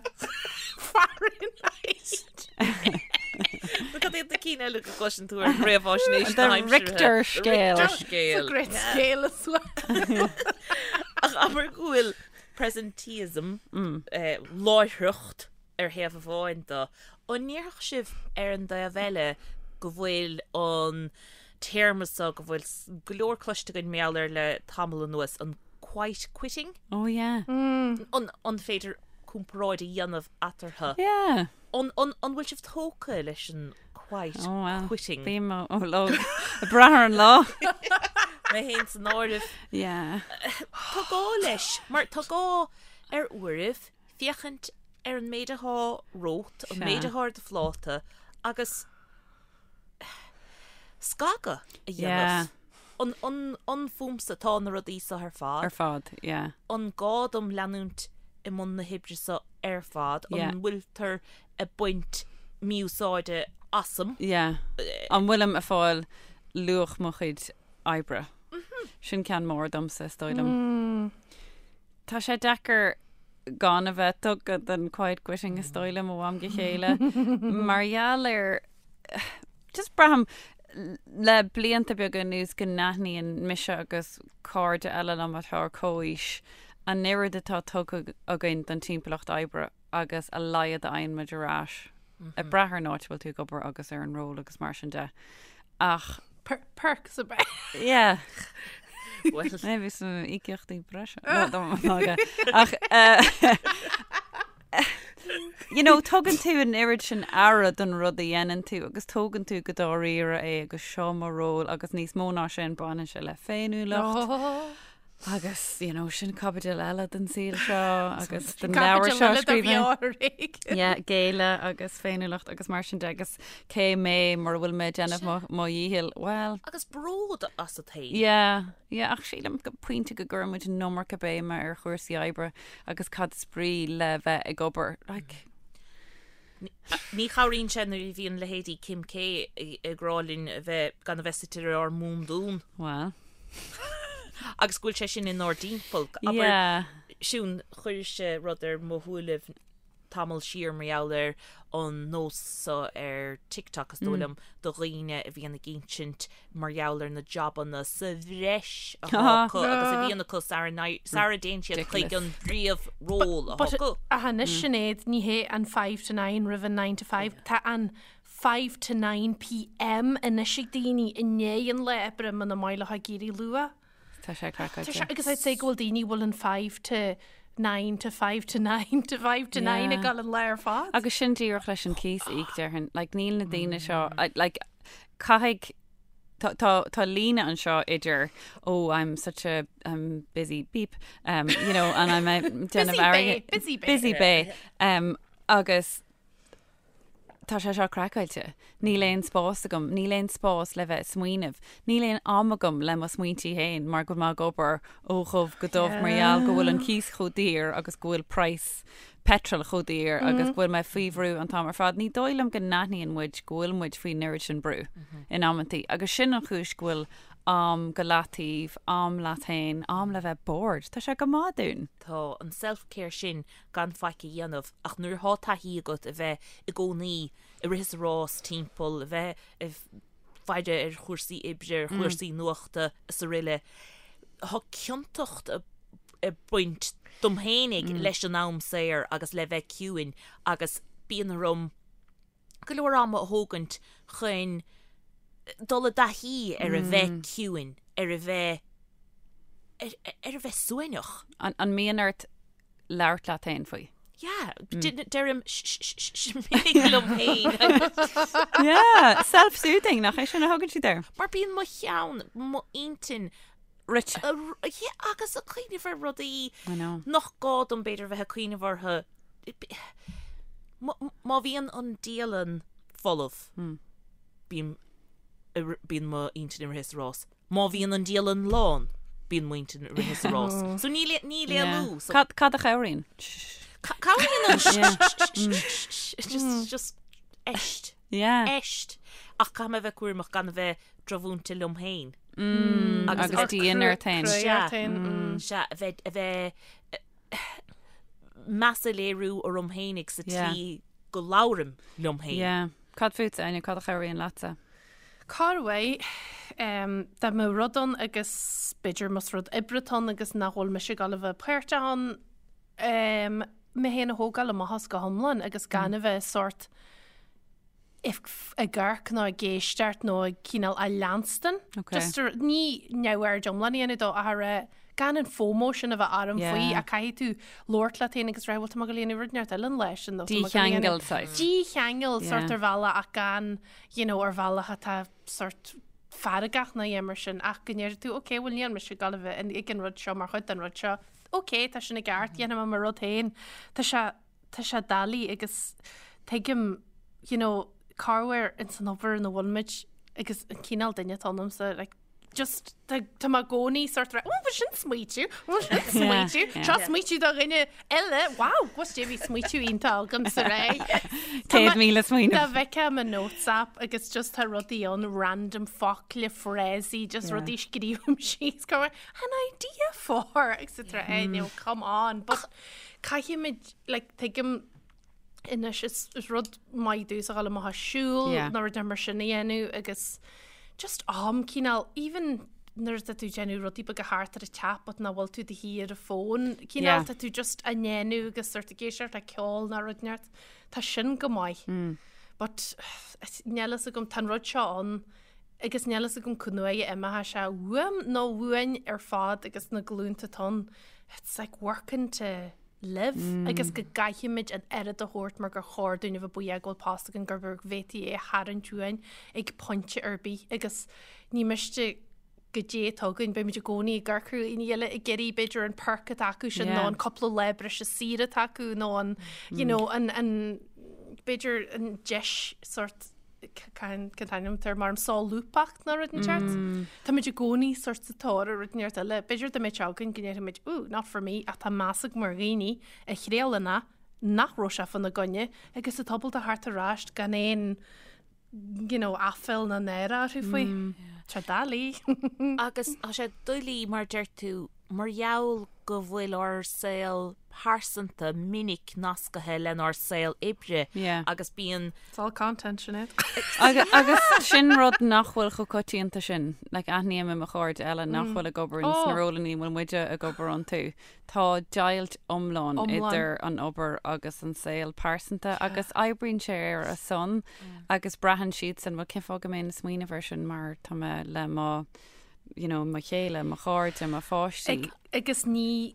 Fahrenheit. Nó cad iad na cinn eile go gcloiseann tú ar réamhaisnéis na haimsire? Richter scale. Richter scale. It's a great scale as well. Ach abair go bhfuil presenteeism, láithreacht ar thaobh amháin de, an ndéarfadh sibh ar an dtaobh eile go bhfuil an téarma seo, go bhfuil go leor cloiste againn mar gheall air le tamall anuas, an quiet quitting? Oh yeah. An féidir comparáid a dhéanamh eatarthu? Yeah. An bhfuil sibh tógtha leis an quiet Oh well. quitting? Bím ó lá, ag brath ar an lá. Mé féin san áireamh. Yeah. Tá gá leis, mar tá gá ar uairibh féachaint ar an méid atá romhat, an méid atá ar do phláta agus scagadh a dhéanamh. An, an, an fúmsa atá na rudaí seo ar fad? Ar fad, yeah. An gá dom leanúint i mbun na hoibre seo ar fad? An bhfuiltear ag baint mí-úsáide asam? Yeah. An bhfuilim ag fáil luach mo chuid oibre? Sin ceann mór domsa, is dóigh liom. Tá sé deacair gan a bheith tugtha don quiet quitting is dóigh liom ó am go chéile mar gheall ar just braithim le blianta beaga anuas go n-aithníonn mise agus cairde eile liom atá ar comhaois an oiread atá tugtha againn don timpeallacht oibre agus a laghad a fhaigheann muid ar ais, ag brath ar an áit a bhfuil tú ag obair agus ar an ról agus mar sin de. Ach. Perks ab ea? Yeah. Well. Maybe some íocaíochtaí breise. Ach, you know, tugann tú an oiread sin aire don rud a dhéanann tú agus tógann tú go dáiríre é agus seo mo ról agus níos mó ná sin baineann sé le féiniúlacht. Agus, you know, sin caibidil eile den saol seo agus den leabhar seo scríofa. Yeah, géilleadh agus féiniúlacht agus mar sin de agus cé mé mura bhfuil mé ag déanamh mo, mo dhícheall, well. Agus bród asat féin. Yeah, yeah, ach sílim go pointe go gcuireann muid an iomarca béime ar chúrsaí oibre agus cad is brí le bheith ag obair, like. Ní chabhraíonn sé nuair a bhíonn leithéidí Kim K ag rá linn a bheith, gan a bheith suite ar ár mbundún. Well. Agus go bhfuil sé sin inár dtimpeall. Abair, Yeah. Siún, chuiris-se rud ar mo shúilibh tamall siar mar gheall ar an nós seo ar TikTok, is dóigh liom, do dhaoine a bhíonn ag insint mar gheall ar na jabanna sa bhreis atá acu agus a bhíonn acu sara dtéann siad chuig an bpríomhról atá acu. Ach anois Sinéad, ní hé an five to nine roimh an nine to five, tá an five to nine pm anois ag daoine i ndiaidh an lae oibre muna maith leo ag éirí luath. Tá sé craiceáilte. Agus I'd say go bhfuil daoine bhfuil an 5 to 9 to 5 to 9 to 5 to 9 ag dul an lá ar fad. Agus sin díreach leis an cíos a íoc déarfainn. Like, níl na daoine seo, like, caithfidh, tá, tá, tá líne anseo idir, oh, I'm such a, I'm busy beep, um, you know, and I'm a déanamh airgid- busy bae. Busy bae. Um, agus Tá sé seo craiceáilte. Níl aon spás agam. Níl aon spás le bheith ag smaoineamh. Níl aon am agam le mo smaointí féin mar go bhfuil mé ag obair ó dhubh go dubh mar gheall go bhfuil an cíos chomh daor agus go bhfuil praghas petrol chomh daor agus go bhfuil mé faoi bhrú an t-am ar fad. Ní dóigh liom go n-aithníonn muid go bhfuil muid faoin oiread sin brú in amantaí agus sin an chúis go bhfuil am go leataobh, am leat féin, am le bheith bored. Tá sé go maith dúinn. Tá an self-care sin gan faic a dhéanamh ach nuair atá taithí agat a bheith i gcónaí ag rith is ag rás timpeall, a bheith ag faire ar chúrsaí oibre, ar chúrsaí nuachta is aroile, tá ciontacht ag baint dom fhéinig leis an am saor agus le bheith ciúin agus bíonn orm go leor ama a thógaint chun dul i dtaithí ar a bheith ciúin, ar a bheith ar a bheith suaimhneach. An mbíonn ort labhairt leat féin faoi. Yeah, deirim sh minic liom féin. Yeah, self-soothing, nach é sin a thugann siad air? Mar bíonn mo cheann, mo intinn, Rite. Yeah, agus ag cuimhneamh ar rudaí nach gá dom b'fhéidir bheith ag cuimhneamh orthu. Má bhíonn an dialann folamh, bíonn mo intinn ag rith is ag rás. Má bhíonn an dialann lán, bíonn m'intinn ag rith is ag rás. So níl níl éalú. So Cad cad a chabhraíonn? Cabhraíonn an sh just just eist. Yeah. Eist. Ach caithfidh mé a bheith cúramach gan a bheith drochmhúinte liom féin. Agus a bheith dian ort féin. Sea. Sea, a bheith a bheith meas a léiriú orm féinig sa tslí go labhraim liom féin. Yeah. Cad fútsa, Áine, cad a chabhraíonn leatsa? Corruair, dá mbeadh rud ann agus b'fhéidir más rud oibre atá ann agus nach bhfuil mise ag dul a bheith páirteach ann, mé féin a thógáil amach as go hiomlán agus gan a bheith sórt ag amharc nó ag éisteacht nó ag cineál á leanstan. Just ní neamhaird iomlán a dhéanamh dó ach a rá gan an FOMO sin a bheith orm faoi ach caithfidh tú labhairt leat féin agus rá bhuel tá mé ag dul a dhéanamh rud inteacht eile an lá sin nó tá mé ag dul a dhéanamh- Dícheangal saghas. Dícheangal sórt ar bhealach ach gan you know, ar bhealach atá sórt feargach nó a dhath mar sin ach go ndéarfaidh tú ok bhuel níl mise ag dul a bheith ag an rud seo mar chuid den rud seo ok tá sin i gceart dhéanfaidh mé mo rud féin tá sé tá sé doiligh agus tuigim you know corruair ins an obair ina bhfuil muid agus an cineál duine atá ionamsa like just tá tá mé i gcónaí sórt rá, oh, sin smaoitiú, oh, sin smaoitiú, seo smaoitiú do dhuine eile, wow, was dé bhí smaoitiú iontach agam sa ré. 100,000 smaoineamh. Dá bhfeicfeá mo notes app agus just tá rudaí ann, random focla, frásaí, just rudaí scríobhaim síos, go an idea for, etc. Eh, no, come on, but caithfimid, like, tuigim, Anois is rud maith domhsa a dhul amach ag siúl nó rud mar sin a dhéanamh agus just am cineál even nuair atá tú ag déanamh rudaí beaga thart ar an teach but nach bhfuil tú do shuí ar an bhfón cineál tá tú just á ndéanamh agus sort ag éisteacht le ceol nó rud inteacht tá sin go maith. But níl fhios agam tá an rud seo ann agus níl fhios agam cá huair a imeoidh sé uaim nó uainn ar fad agus na glúnta atá ann it's like working to live agus go gcaithfimid an oiread a thabhairt mar gur chóir dúinn a bheith buíoch go bhfuil post againn gur go bhféadfaí é a tharraingt uainn ag pointe ar bith agus ní miste goidé atá againn, beimid i gcónaí ag amharc ar dhaoine eile ag iarraidh b'fhéidir an perk atá acu sin nó an cúpla lá breise saoire atá acu nó an you know an an b'fhéidir an deis sort cén t-ainm atá air mar an solúbthacht nó rud inteacht. Táimid i gcónaí sort sa tóir ar rud inteacht eile. B'fhéidir dá mbeadh sé againn go ndéarfaimid, ooh, not for me, ach tá meas agam ar dhaoine a thriaileann é nach raibh sé fána gcoinne agus atá ábalta theacht ar ais gan aon you know, aiféal ná náire orthu faoi. Tá doiligh. Agus tá sé doiligh mar deir tú, mar gheall go bhfuil ár saol pearsanta minic nascaithe lenár saol oibre agus bíonn. It's all content, Sinéad. Agus sin rud nach bhfuil chomh coitianta sin. Like, aithním i mo chairde eile nach bhfuil ag obair ins na rólanna a bhfuil muide ag obair iontu. Tá deighilt iomlán idir an obair agus an saol pearsanta agus oibríonn sé ar a son agus braitheann siadsan, bhuel, cén fáth go mbeinn ag smaoineamh air sin mar tá mé le mo. you know, mo chéile, mo chairde, mo pháistí. Agus ní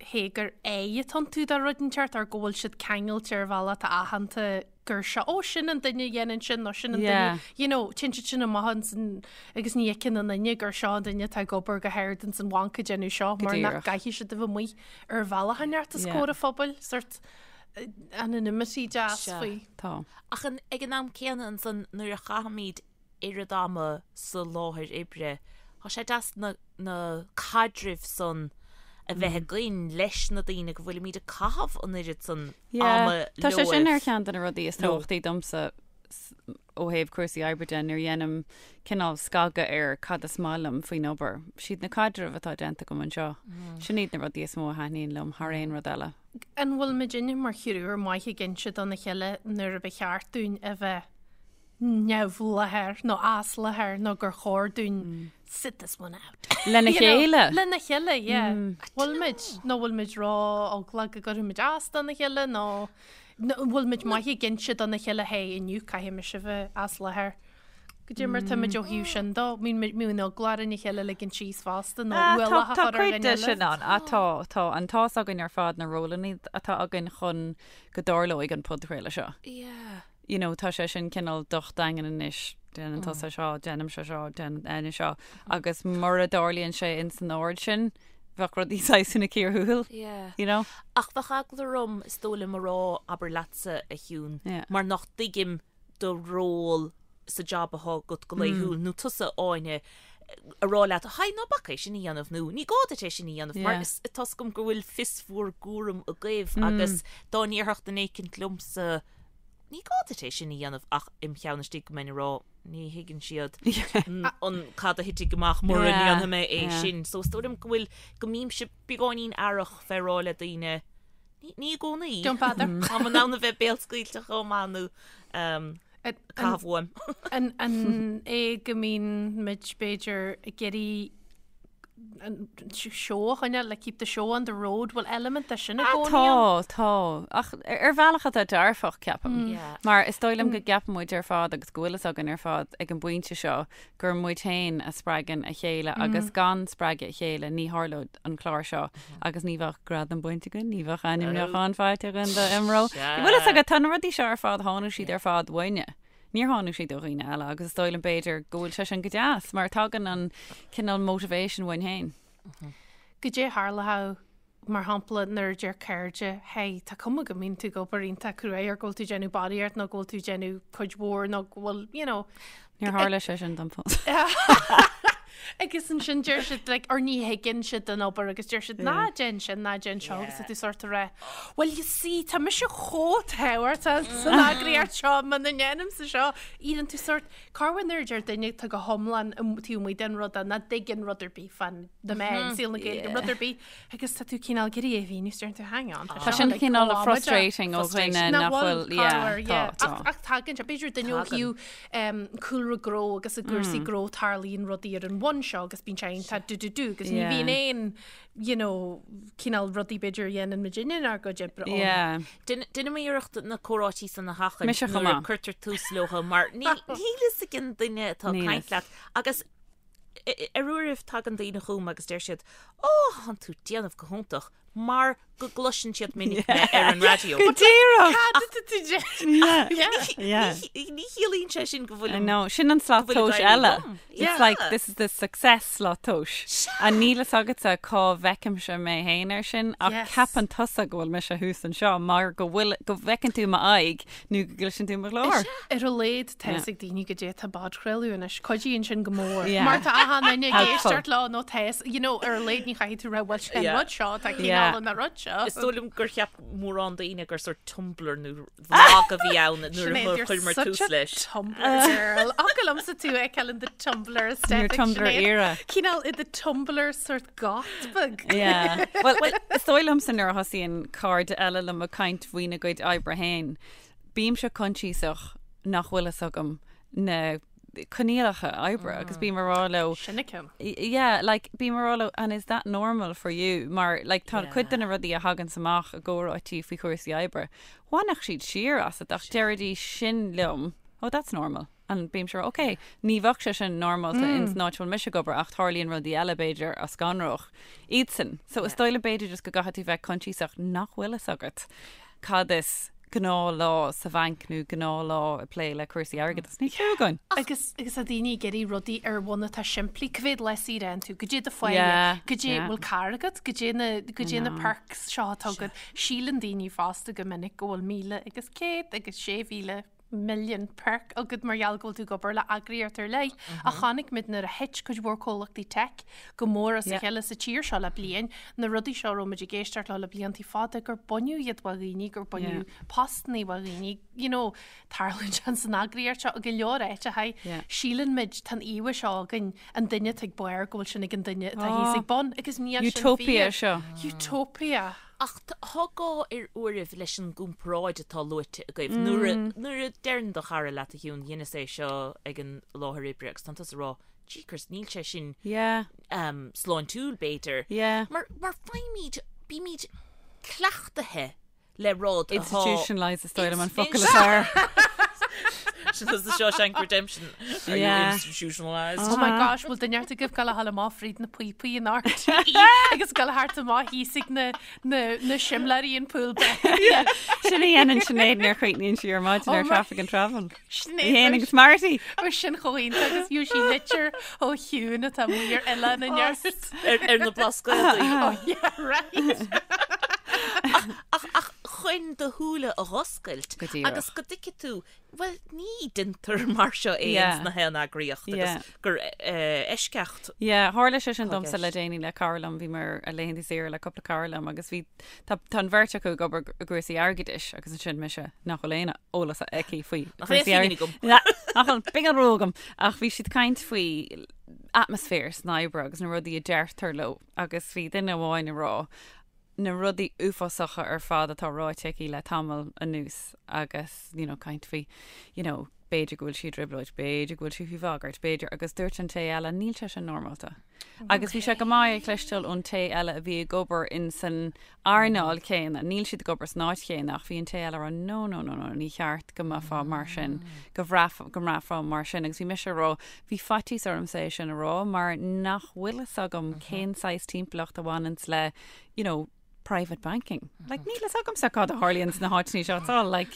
hé gur aghaidh atá iontu do rud inteacht or go bhfuil siad ceangailte ar bhealach atá aitheanta gur seo, ó sin an duine a dhéanann sin nó sin an duine, you know, téann siad sin amach ansan agus ní fheiceann aon duine gur seo an duine atá ag obair go hard ins an bhanc ag déanamh seo mar nach gcaithfidh siad a bheith amuigh ar bhealach inteacht os comhair an phobail, sort anonymity deas faoi. Tá. Ach ag an am céanna ansan nuair a chaithimid oiread ama sa láthair oibre, tá sé deas na na caidrimh san a bheith againn leis na daoine go bhfuilimid ag caitheamh an oiread san ama Yeah, tá sé sin ar cheann de na rudaí is tábhachtaí domsa ó thaobh cúrsaí oibre de nuair a dhéanaim cineál scagadh ar cad is maith liom faoin obair. Siad na caidrimh atá déanta agam anseo. Sin iad na rudaí is mó a thaitníonn liom thar aon rud eile. An bhfuil muidinne mar thriúr maith ag inse dona chéile nuair a ba cheart dúinn a bheith neamhláthair nó as láthair nó gur chóir dúinn sit this one out. Lena chéile? Lena chéile, yeah. Bhfuil muid nó bhfuil muid ró-eaglach go gcuirfidh muid as dona chéile nó bhfuil muid maith ag inse dona chéile hey inniu caithfidh mise bheith as láthair. Goidé mar tá muid ó thaobh sin dó, mbíonn eagla orainn a chéile a ligean síos fosta nó ualach a chur ar dhuine eile. Tá cuid de sin ann. Tá, tá. An tá's againn ar fad na rólanna atá againn chun go dtarlóidh an podchraoladh seo. Yeah. You know, tá sé sin cineál docht daingean anois, déanann tusa seo, déanaimse seo, déanann Áine seo, agus mura dtarlaíonn sé in san ord sin, bheadh rudaí saghas ina cíor thuathail. Yeah. You know? Ach bheadh eagla orm, is dóigh liom, a rá, abair leatsa, a Shiún, Yeah. mar nach dtuigim do ról sa jab atá agat go laethúil, nó tusa, Áine, a rá leat, Haigh, ná bac é sin a dhéanamh, nó ní gá duit é sin a dhéanamh, mar is tá's agam go bhfuil fios bhur gcúram agaibh agus dá ndéarfadh duine éicint liomsa, ní gá duit é sin a dhéanamh ach im cheann istigh go mbeinn ag rá, ní thuigeann siad an cad a thitfidh amach mura ndéanfaidh mé é sin. So is dóigh liom go bhfuil, go mbímse beagáinín aireach fé rá le daoine, ní i gcónaí. Don't bother. Táim in ann a bheith béalscaoilte chomh maith nó caitheamh uaim. An é go mbíonn muid b'fhéidir ag iarraidh an seó a choinneáil, like keep the show on the road, bhfuil element de sin i gcónaí ann? Tá, tá. Ach ar bhealach atá dearfach, ceapaim. Mar is dóigh liom go gceapann muid ar fad agus go bhfuil fhios againn ar fad ag an bpointe seo gur muid féin a spreagann a chéile agus gan spreagadh a chéile ní tharlódh an clár seo agus ní bheadh gradam bainte againn, ní bheadh ainmniúchán faighte againn do IMRO. Bhfuil fhios agat, tá na rudaí seo ar fad, tháinig siad ar fad uainne. Níor tháinig siad ó dhaoine eile agus is dóigh liom b'fhéidir go bhfuil sé sin go deas mar tagann an cineál motivation uainn féin. Goidé a tharlódh mar shampla nuair a deir cairde, hey, tá cuma go mbíonn tú ag obair iontach cruaidh or go bhfuil tú ag déanamh barraíocht nó go bhfuil tú ag déanamh cuid mhór nó go bhfuil, you know. Níor tharla sé sin dom fós. Agus ansin deir siad like, or ní thuigeann siad an obair agus deir siad ná déan sin, ná déan seo agus tá tú sort of rá, well you see tá mise chomh tábhachtach san eagraíocht seo muna ndéanaimse seo, éiríonn tú sort, cá bhfuil nuair a deir duine tá go hiomlán taobh amuigh den rud nach dtuigeann rud ar bith fán na meáin, saol na Gaeilge, rud ar bith Agus tá tú cineál ag iarraidh é a mhíniú, is deireann tú hang on. Tá sin cineál frustrating ó dhuine nach bhfuil, yeah, tá, tá. Ach tagann sé, b'fhéidir duine ó thaobh cúlra gnó agus i gcúrsaí gnó tarlaíonn rudaí ar an bhonn seo agus bíonn sé iontach do do do agus ní bhíonn aon, you know, cineál rudaí b'fhéidir a dhéanann muidinne inár gcuid oibre ann. Yeah. Déanaim iarracht na comhráití san a sheachaint nuair a cuirtear tús leo mar níl fhios ag an duine atá ag caint leat agus Ar uairibh tagann daoine chugam agus deir siad, Ó, thánn tú déanamh go hiontach, mar go gcloiseann siad minic mé ar an raidió. Go díreach! Cad atá tú déanamh? Ní chiallaíonn sé sin go bhfuil I know, sin an slat tomhais eile. It's like, this is the success slat tomhais. And níl fhios agatsa cá bhfeicimse mé féin air sin, ach ceapann tusa go bhfuil mise thuas anseo mar go bhfuil, go bhfeiceann tú m'aghaidh nó go gcloiseann tú mo ghlór. Ar a laghad tá fhios ag daoine goidé atá á bpodchraoladh anois. Cuidíonn sin go mór. Mar tá achan duine ag éisteacht leo nó tá fhios, you know, ar a laghad ní chaithfidh tú rá bhuel sin an rud seo, tá cineál an rud seo. Is dóigh liom gur cheap mórán daoine gur sort Tumblr nó vlog a bhí ann nuair a chuireamar tús leis. Tumblr girl. Fhaca liomsa tú ag feiceáil in the Tumblr aesthetic. Your Tumblr era. Cineál i the Tumblr sort goth beag. Yeah. Well, is dóigh liomsa nuair a thosaíonn cairde eile liom ag caint faoina gcuid oibre féin, bímse coinsiasach nach bhfuil fhios agam na coinníollacha oibre agus bím ag rá leo Sin a ceann. Yeah, like bím ag rá leo and is that normal for you? Mar like tá cuid de na rudaí a thaganns amach i gcomhráití faoi chúrsaí oibre, bhainfeadh siad siar asat ach deiridís sin liom, oh that's normal. An bímse ag rá, ok, ní bheadh sé sin normálta ins an áit a bhfuil mise ag obair ach tarlaíonn rudaí eile b'fhéidir a scanródh iadsan. So is dóigh liom b'fhéidir just go gcaithfidh tú bheith coinsiasach nach bhfuil fhios agat cad is gnáthlá sa bhanc nó gnáthlá ag plé le cúrsaí airgeadais. Níl clue againn. Agus agus tá daoine ag iarraidh rudaí ar bhonn atá simplí. Cá mhéad lá saoire a fhaigheann tú? Goidé do pháighe? Yeah, Goidé yeah. bhfuil carr agat? Goidé na goidé na know. perks seo atá agat? Síleann daoine fosta go minic go bhfuil 1,000 agus 100 agus 6,000 milliún perk agat mar gheall go bhfuil tú ag obair le eagraíocht ar leith. Ach chonaic muid nuair a thit cuid mhór comhlachtaí tech go mór as a chéile sa tír seo le bliain, na rudaí seo a raibh muid ag éisteacht leo le bliantaí fada, gur baineadh iad ó dhaoine, gur baineadh postannaí ó dhaoine, you know, tarlaíonn sé san eagraíocht seo i go leor áiteacha. Síleann muid, tá an íomha seo againn, an duine atá ag barr go bhfuil sin ag an duine atá thíos ag bun, agus níl sin fíor. Utopia seo. Utopia. Ach tá gá ar uairibh leis an gcomparáid atá luaite agaibh. Nuair a, nuair a deireann do chara leat a Shiún, dheineas é seo ag an láthair oibre agus tánn tusa ag rá, jeekers, níl sé sin Yeah. um, sláintiúil b'fhéidir. Yeah. Mar, mar faighimid, bímid cleachtaithe le rud atá... Institutionalised is dóigh liom an focal is fearr. Sin is the Shawshank Redemption. Are you Yeah. institutionalised? Oh my gosh, bhfuil duine ort agaibh gabháil a ghabháil amach fríd na píopaí in RTÉ agus gabháil thart amach thíos ag na, na, na simléirí in Pool Bay. Sin a dhéanann Sinéad nuair a chríochnaíonn sí ar maidin Oh ar my- Traffic and Travel. Sinéad Í fhéin agus Marty. Ó sin chomh iontach agus fiú sí litir ó Shiún atá amuigh ar oileán i neart. Ar, ar na Blascaodaí. Oh yeah, right. Ach, ach chun do shúile a dh'oscailt Go díreach. agus go dtuigfidh tú, bhuel, ní deintear mar seo é Yeah. ins na haon eagraíocht agus Yeah. gur eh, eisceacht Yeah, tharla sé sin Tá domsa le gceist. déanaí le cara liom, bhí mé ar laethanta saoire le cúpla cara liom agus bhí tá tá an bheirt acu ag obair i gcúrsaí airgeadais agus ansin mise nach bhfuil aon eolas aici faoi Nach bhfuil cúrsaí aon airgeadais. agam. Na, nach bhfuil pingin rua agam ach bhí siad ag caint faoi atmaisféar san oibre agus na rudaí a deirtear leo agus bhí duine amháin ag rá na rudaí uafásacha ar fad atá ráite aici le tamall anuas agus you know, caint faoi you know, b'fhéidir go bhfuil sí i dtrioblóid, b'fhéidir go bhfuil sí faoi bhagairt, b'fhéidir agus dúirt an té eile níl sé sin normálta. Agus bhí sé go maith a chloisteáil ón té eile a bhí ag obair in san earnáil chéanna, níl siad ag obair san áit chéanna ach bhí an té eile ag rá no no no no ní cheart go mbeifeá mar sin, go bhraith go mbraithfeá mar sin agus bhí mise ag rá bhí faitíos ormsa é sin a rá mar nach bhfuil fhios agam cén saghas timpeallacht a bhaineanns le you know, private banking. Like, níl fhios agamsa cad a tharlaíonn sna háiteanna seo. It's all like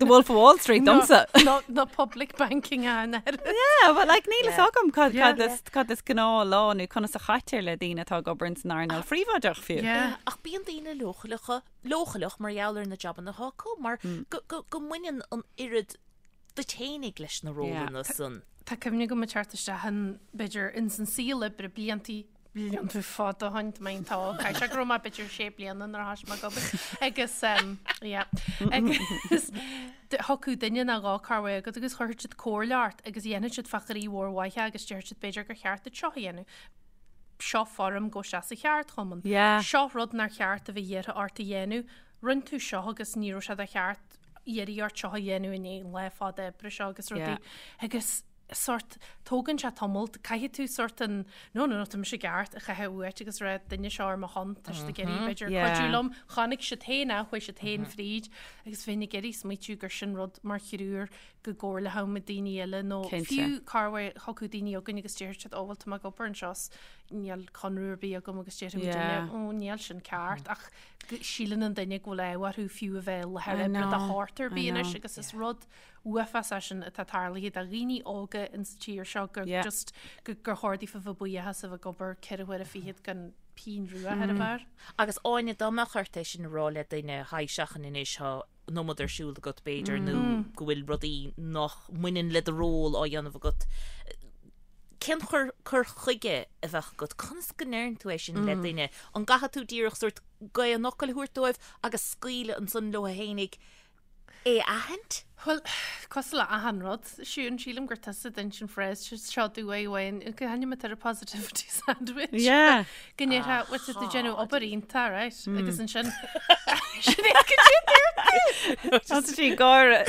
the Wolf of Wall Street domsa. No, no public banking an air. Yeah, but like níl fhios agam cad Yeah. cad is cad is gnáthlá nó conas a chaitear le daoine atá ag obair ins an earnáil phríobháideach fiú. Yeah. Ach bíonn daoine leochaileacha, leochaileach mar gheall ar na jabanna atá acu, mar go, go, go mbaineann an oiread duit fhéinig leis na rólanna san. Tá cuimhne agam ag teacht isteach in, b'fhéidir, ins an saol oibre bliantaí, blianta fada ó shin, tá mé iontach óg, caithfidh sé go raibh mé b'fhéidir sé bliana nuair a thoisigh mé ag obair, agus ehm, yeah, agus thiocfadh duine nó dhó corruair chugat agus chuirfeadh siad comhairle ort agus dhéanfadh siad fá chroí mhór mhaith é agus déarfadh siad b'fhéidir gur cheart duit seo a dhéanamh. Seo foirm gabh isteach sa cheardchumann. Yeah. Seo rud nár cheart a bheith iarrtha ort a dhéanamh. Rinne tú seo agus ní raibh sé de cheart iarraidh ort seo a dhéanamh i ndiaidh an lá fada oibre seo agus rudaí. Yeah. Agus sórt, tógann sé tamall, caithfidh tú sórt an no no no tá mise ceart a chaitheamh uait agus rá duine seo ar mo shon, tá siad ag iarraidh b'fhéidir Yeah. cuidiú liom, chonaic siad féin é, chuaigh siad féin fríd agus bheinn ag iarraidh smaoitiú gur sin rud mar thriúr go gcomhairleodh muid daoine eile nó Cinnte. fiú corruair thiocfadh daoine chugainn agus déarfadh siad ó bhuel tá mé ag obair anseo 's níl conradh ar bith agam agus déarfadh muid Yeah. ó níl sin ceart ach síleann an duine go bhfuil ádh orthu fiú a bheith i láthair I oibre de know, shórt ar I bith anois know. agus is rud uafás é sin atá tarlaithe do dhaoine óga ins an tír seo gur Yeah. just gur chóir daofa bheith buíoch as a bheith ag obair ceithre huaire fichead gan pingin rua ar a bharr. Agus Áine, dá mbeadh ort é sin a rá le duine, haigh seachain anois, tá an iomad ar siúl agat b'fhéidir nó go bhfuil rudaí nach mbaineann le do ról á dhéanamh agat, cén cur cur chuige a bheadh agat? Conas go ndeireann tú é sin le duine? An gcaithfidh tú díreach sórt gaoth an fhocail a thabhairt dóibh agus scaoileadh ansan leo fhéinig é a aithint? Bhuel, cosúil le achan rud, Siún, sílim gur tusa a d'inis an phrase seo domh uain, go hainm atá ar positivity sandwich. Yeah. Go ndéarfá, bhuel, tá tú ag déanamh obair iontach, right? Agus ansin, sin é go dtí dúirt tú! Tá sí ag gáire.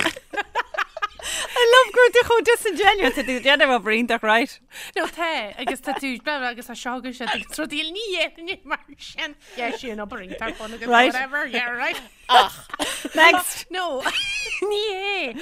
I love go bhfuil tú chomh disingenuous tá tú ag déanamh obair iontach right? No tá agus tá tú blah, blah, agus tá seo agus siad agus rudaí ní dhéanfainn é mar sin. Yeah, sin obair iontach fun agus Right. whatever, yeah, right. Next! No, ní hé.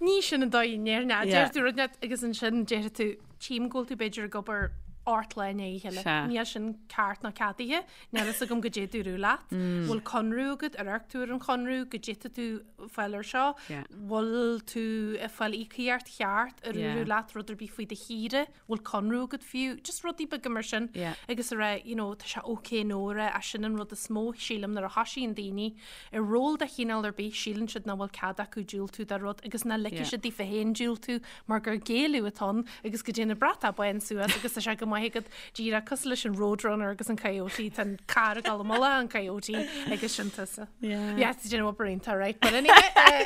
Ní sin an dóigh a ndéarfainn é. Yeah. Deir tú rud net agus ansin deir tú tchím go bhfuil tú b'fhéidir ag obair ort lá i ndiaidh a chéile. Sea. Níl sin ceart ná ceadaithe. Níl fhios agam goidé dúradh leat. Bhfuil conradh agat, ar amharc tú ar an chonradh, goidé tá tú fáil ar seo. Yeah. Bhfuil tú ag fáil íocaíocht cheart, ar Yeah. dúradh leat rud ar bith faoi do shaoire, bhfuil conradh agat fiú, just rudaí beaga mar sin. Yeah. Agus a rá, you know, tá sé ok no a rá, ach sin an rud is mó, sílim, nuair a thosaíonn daoine i ról de chineál ar bith, síleann siad nach bhfuil cead acu diúltú do rud agus nach ligfidh Yeah. siad daofa féin diúltú mar gur géilleadh atá ann agus go dtéann an bratach bán suas agus tá sé go maith agat díreach cosúil leis an Roadrunner agus an Coyote, tá an carr ag dul i mullach an Coyote agus sin tusa. Yeah. Yeah, tá déanamh obair iontach, right? But anyway, uh,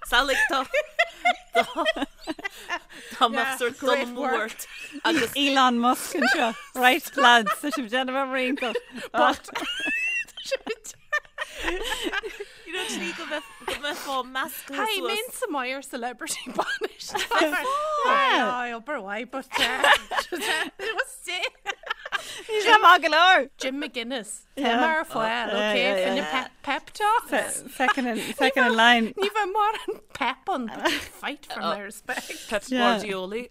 Samhlaigh tá Tá mbeadh sort dul great amú work. ort agus Elon Musk anseo. Right, lads, tá sibh déanamh obair iontach. but you know tslí go mbeadh go mbeifeá measctha Hi, suas. mé sa Meyer celebrity banish. Aye, obair mhaith, but uh, it was sick. Ní sé maith go leor. Jim McGuinness. Yeah. Tá mar fáil, Yeah, okay, yeah, yeah. Finne pep, pep talk. Second in, second in line. Ní bheith mar an pep an but you fight for my respect. Pep Yeah. Guardiola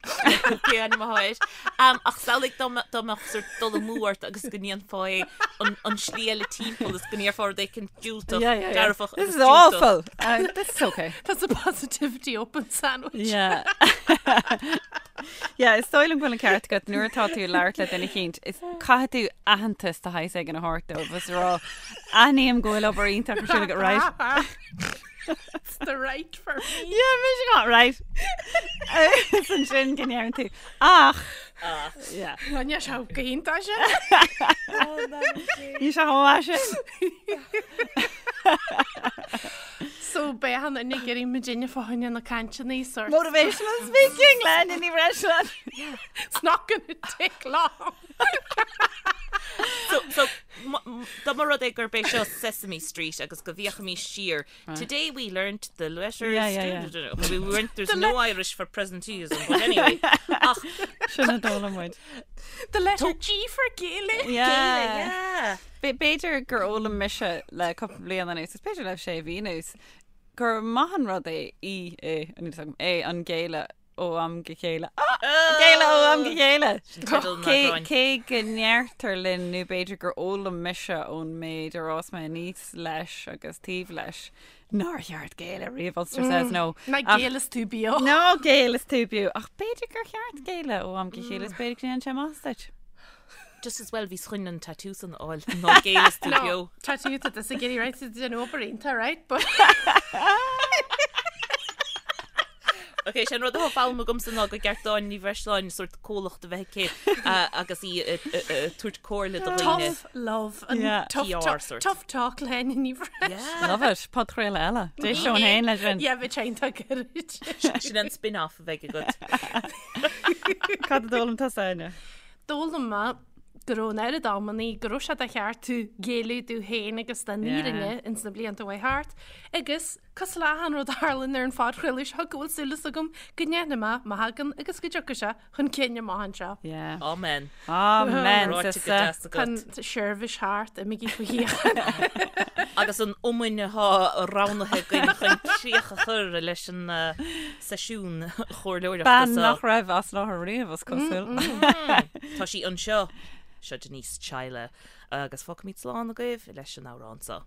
Cé ainm atá air. Ach samhlaigh dá mbeadh dá mbeadh sort dul amú ort agus go ndéanfá é an an slí eile timpeall is go ndéarfá rud éicint diúltach Yeah, yeah, yeah. dearfach This agus is diúltach. awful. Uh, this is okay. That's a positivity open sandwich. Yeah. Yeah, is dóigh liom go bhfuil an ceart agat nuair atá tú ag labhairt le duine eicínt, is caithfidh tú aitheantas de shaghas éigin a thabhairt dóibh is a rá aithním go bhfuil obair iontach ar siúl agat, right? It's the right for me. Yeah, mise got right. Is ansin go ndeireann tú ach Yeah. Níl sé go hiontach sin. Ní sé chomh maith sin. So beidh an duine ag iarraidh muidinne fá choinne na cainteanna sort. Motivational speaking le Áine Ní Bhreisleáin. It's not gonna take long. So, so, dá mba rud é gurb é seo Sesame Street agus go bhféachaimis siar. Today we learnt the letters. Yeah, yeah, yeah. We weren't, there's no Irish for presenteeism, but anyway. Ach, Sin a d'fhoghlaim muid. The letter G for Gaelic. Yeah. yeah. B'fhéidir gur fhoghlaim mise le cúpla bliain anuas, is b'fhéidir le sé mhí anuas, gur maith an rud é í é, an níl a fhios agam, é an géilleadh ó am go chéile. Ah! Géilleadh ó am go chéile! Teideal an Cé eagráin. cé go ndeirtear linn nó b'fhéidir gur fhoghlaim mise ón méid ar fhás mé aníos leis agus taobh leis nár cheart géilleadh riamh, Ulster says no. Ná Ach- géill is tú beo. Ná géill is tú beo. Ach b'fhéidir gur cheart géilleadh ó am go chéile is b'fhéidir go ndéanann sé maitheas duit. Just as well bhíos chun an tattoo san a fháil ná géill is tú beo. Tattoo tá tusa ag iarraidh right tá déanamh obair iontach right but Ok, sé an rud atá foghlamtha agamsa ná gur ceart d'Áine Ní Bhreisleáin sort comhlacht a bheith aici agus í ag tabhairt comhairle do dhaoine. Tough love and Yeah. tough PR talk, sort. tough talk le Áine Ní Bhreisleáin. Love it. Podchraoladh eile. D'éisteoinn féin leis sin. Yeah, bhí sé iontach gairid. Sin an spin-off a bheidh agat. Cad a d'fhoghlaim tusa, Áine? D'fhoghlaim mé go raibh an oiread amannaí go raibh sé de cheart tú géilleadh tú féin agus don fhírinne ins na blianta a chuaigh thart agus cosúil le achan rud a tharlaíonn ar an phodchraoladh seo go bhfuil súil agam go ndéanfaidh mé mo thagann agus go dtiocfaidh sé chun cinn amach anseo. Yeah. Amen. Amen, Ráite go sister. deas Tá agat. an seirbhís thart, imígí faoi shíocháin. Agus an iomainn atá roghnaithe againn chun críoch a chur leis an seisiún chomhairleoireachta Bean seo. nach raibh as láthair riamh, is cosúil. Tá sí anseo. Seo Denise Chaila. Agus fágfaimid slán agaibh leis an amhrán seo.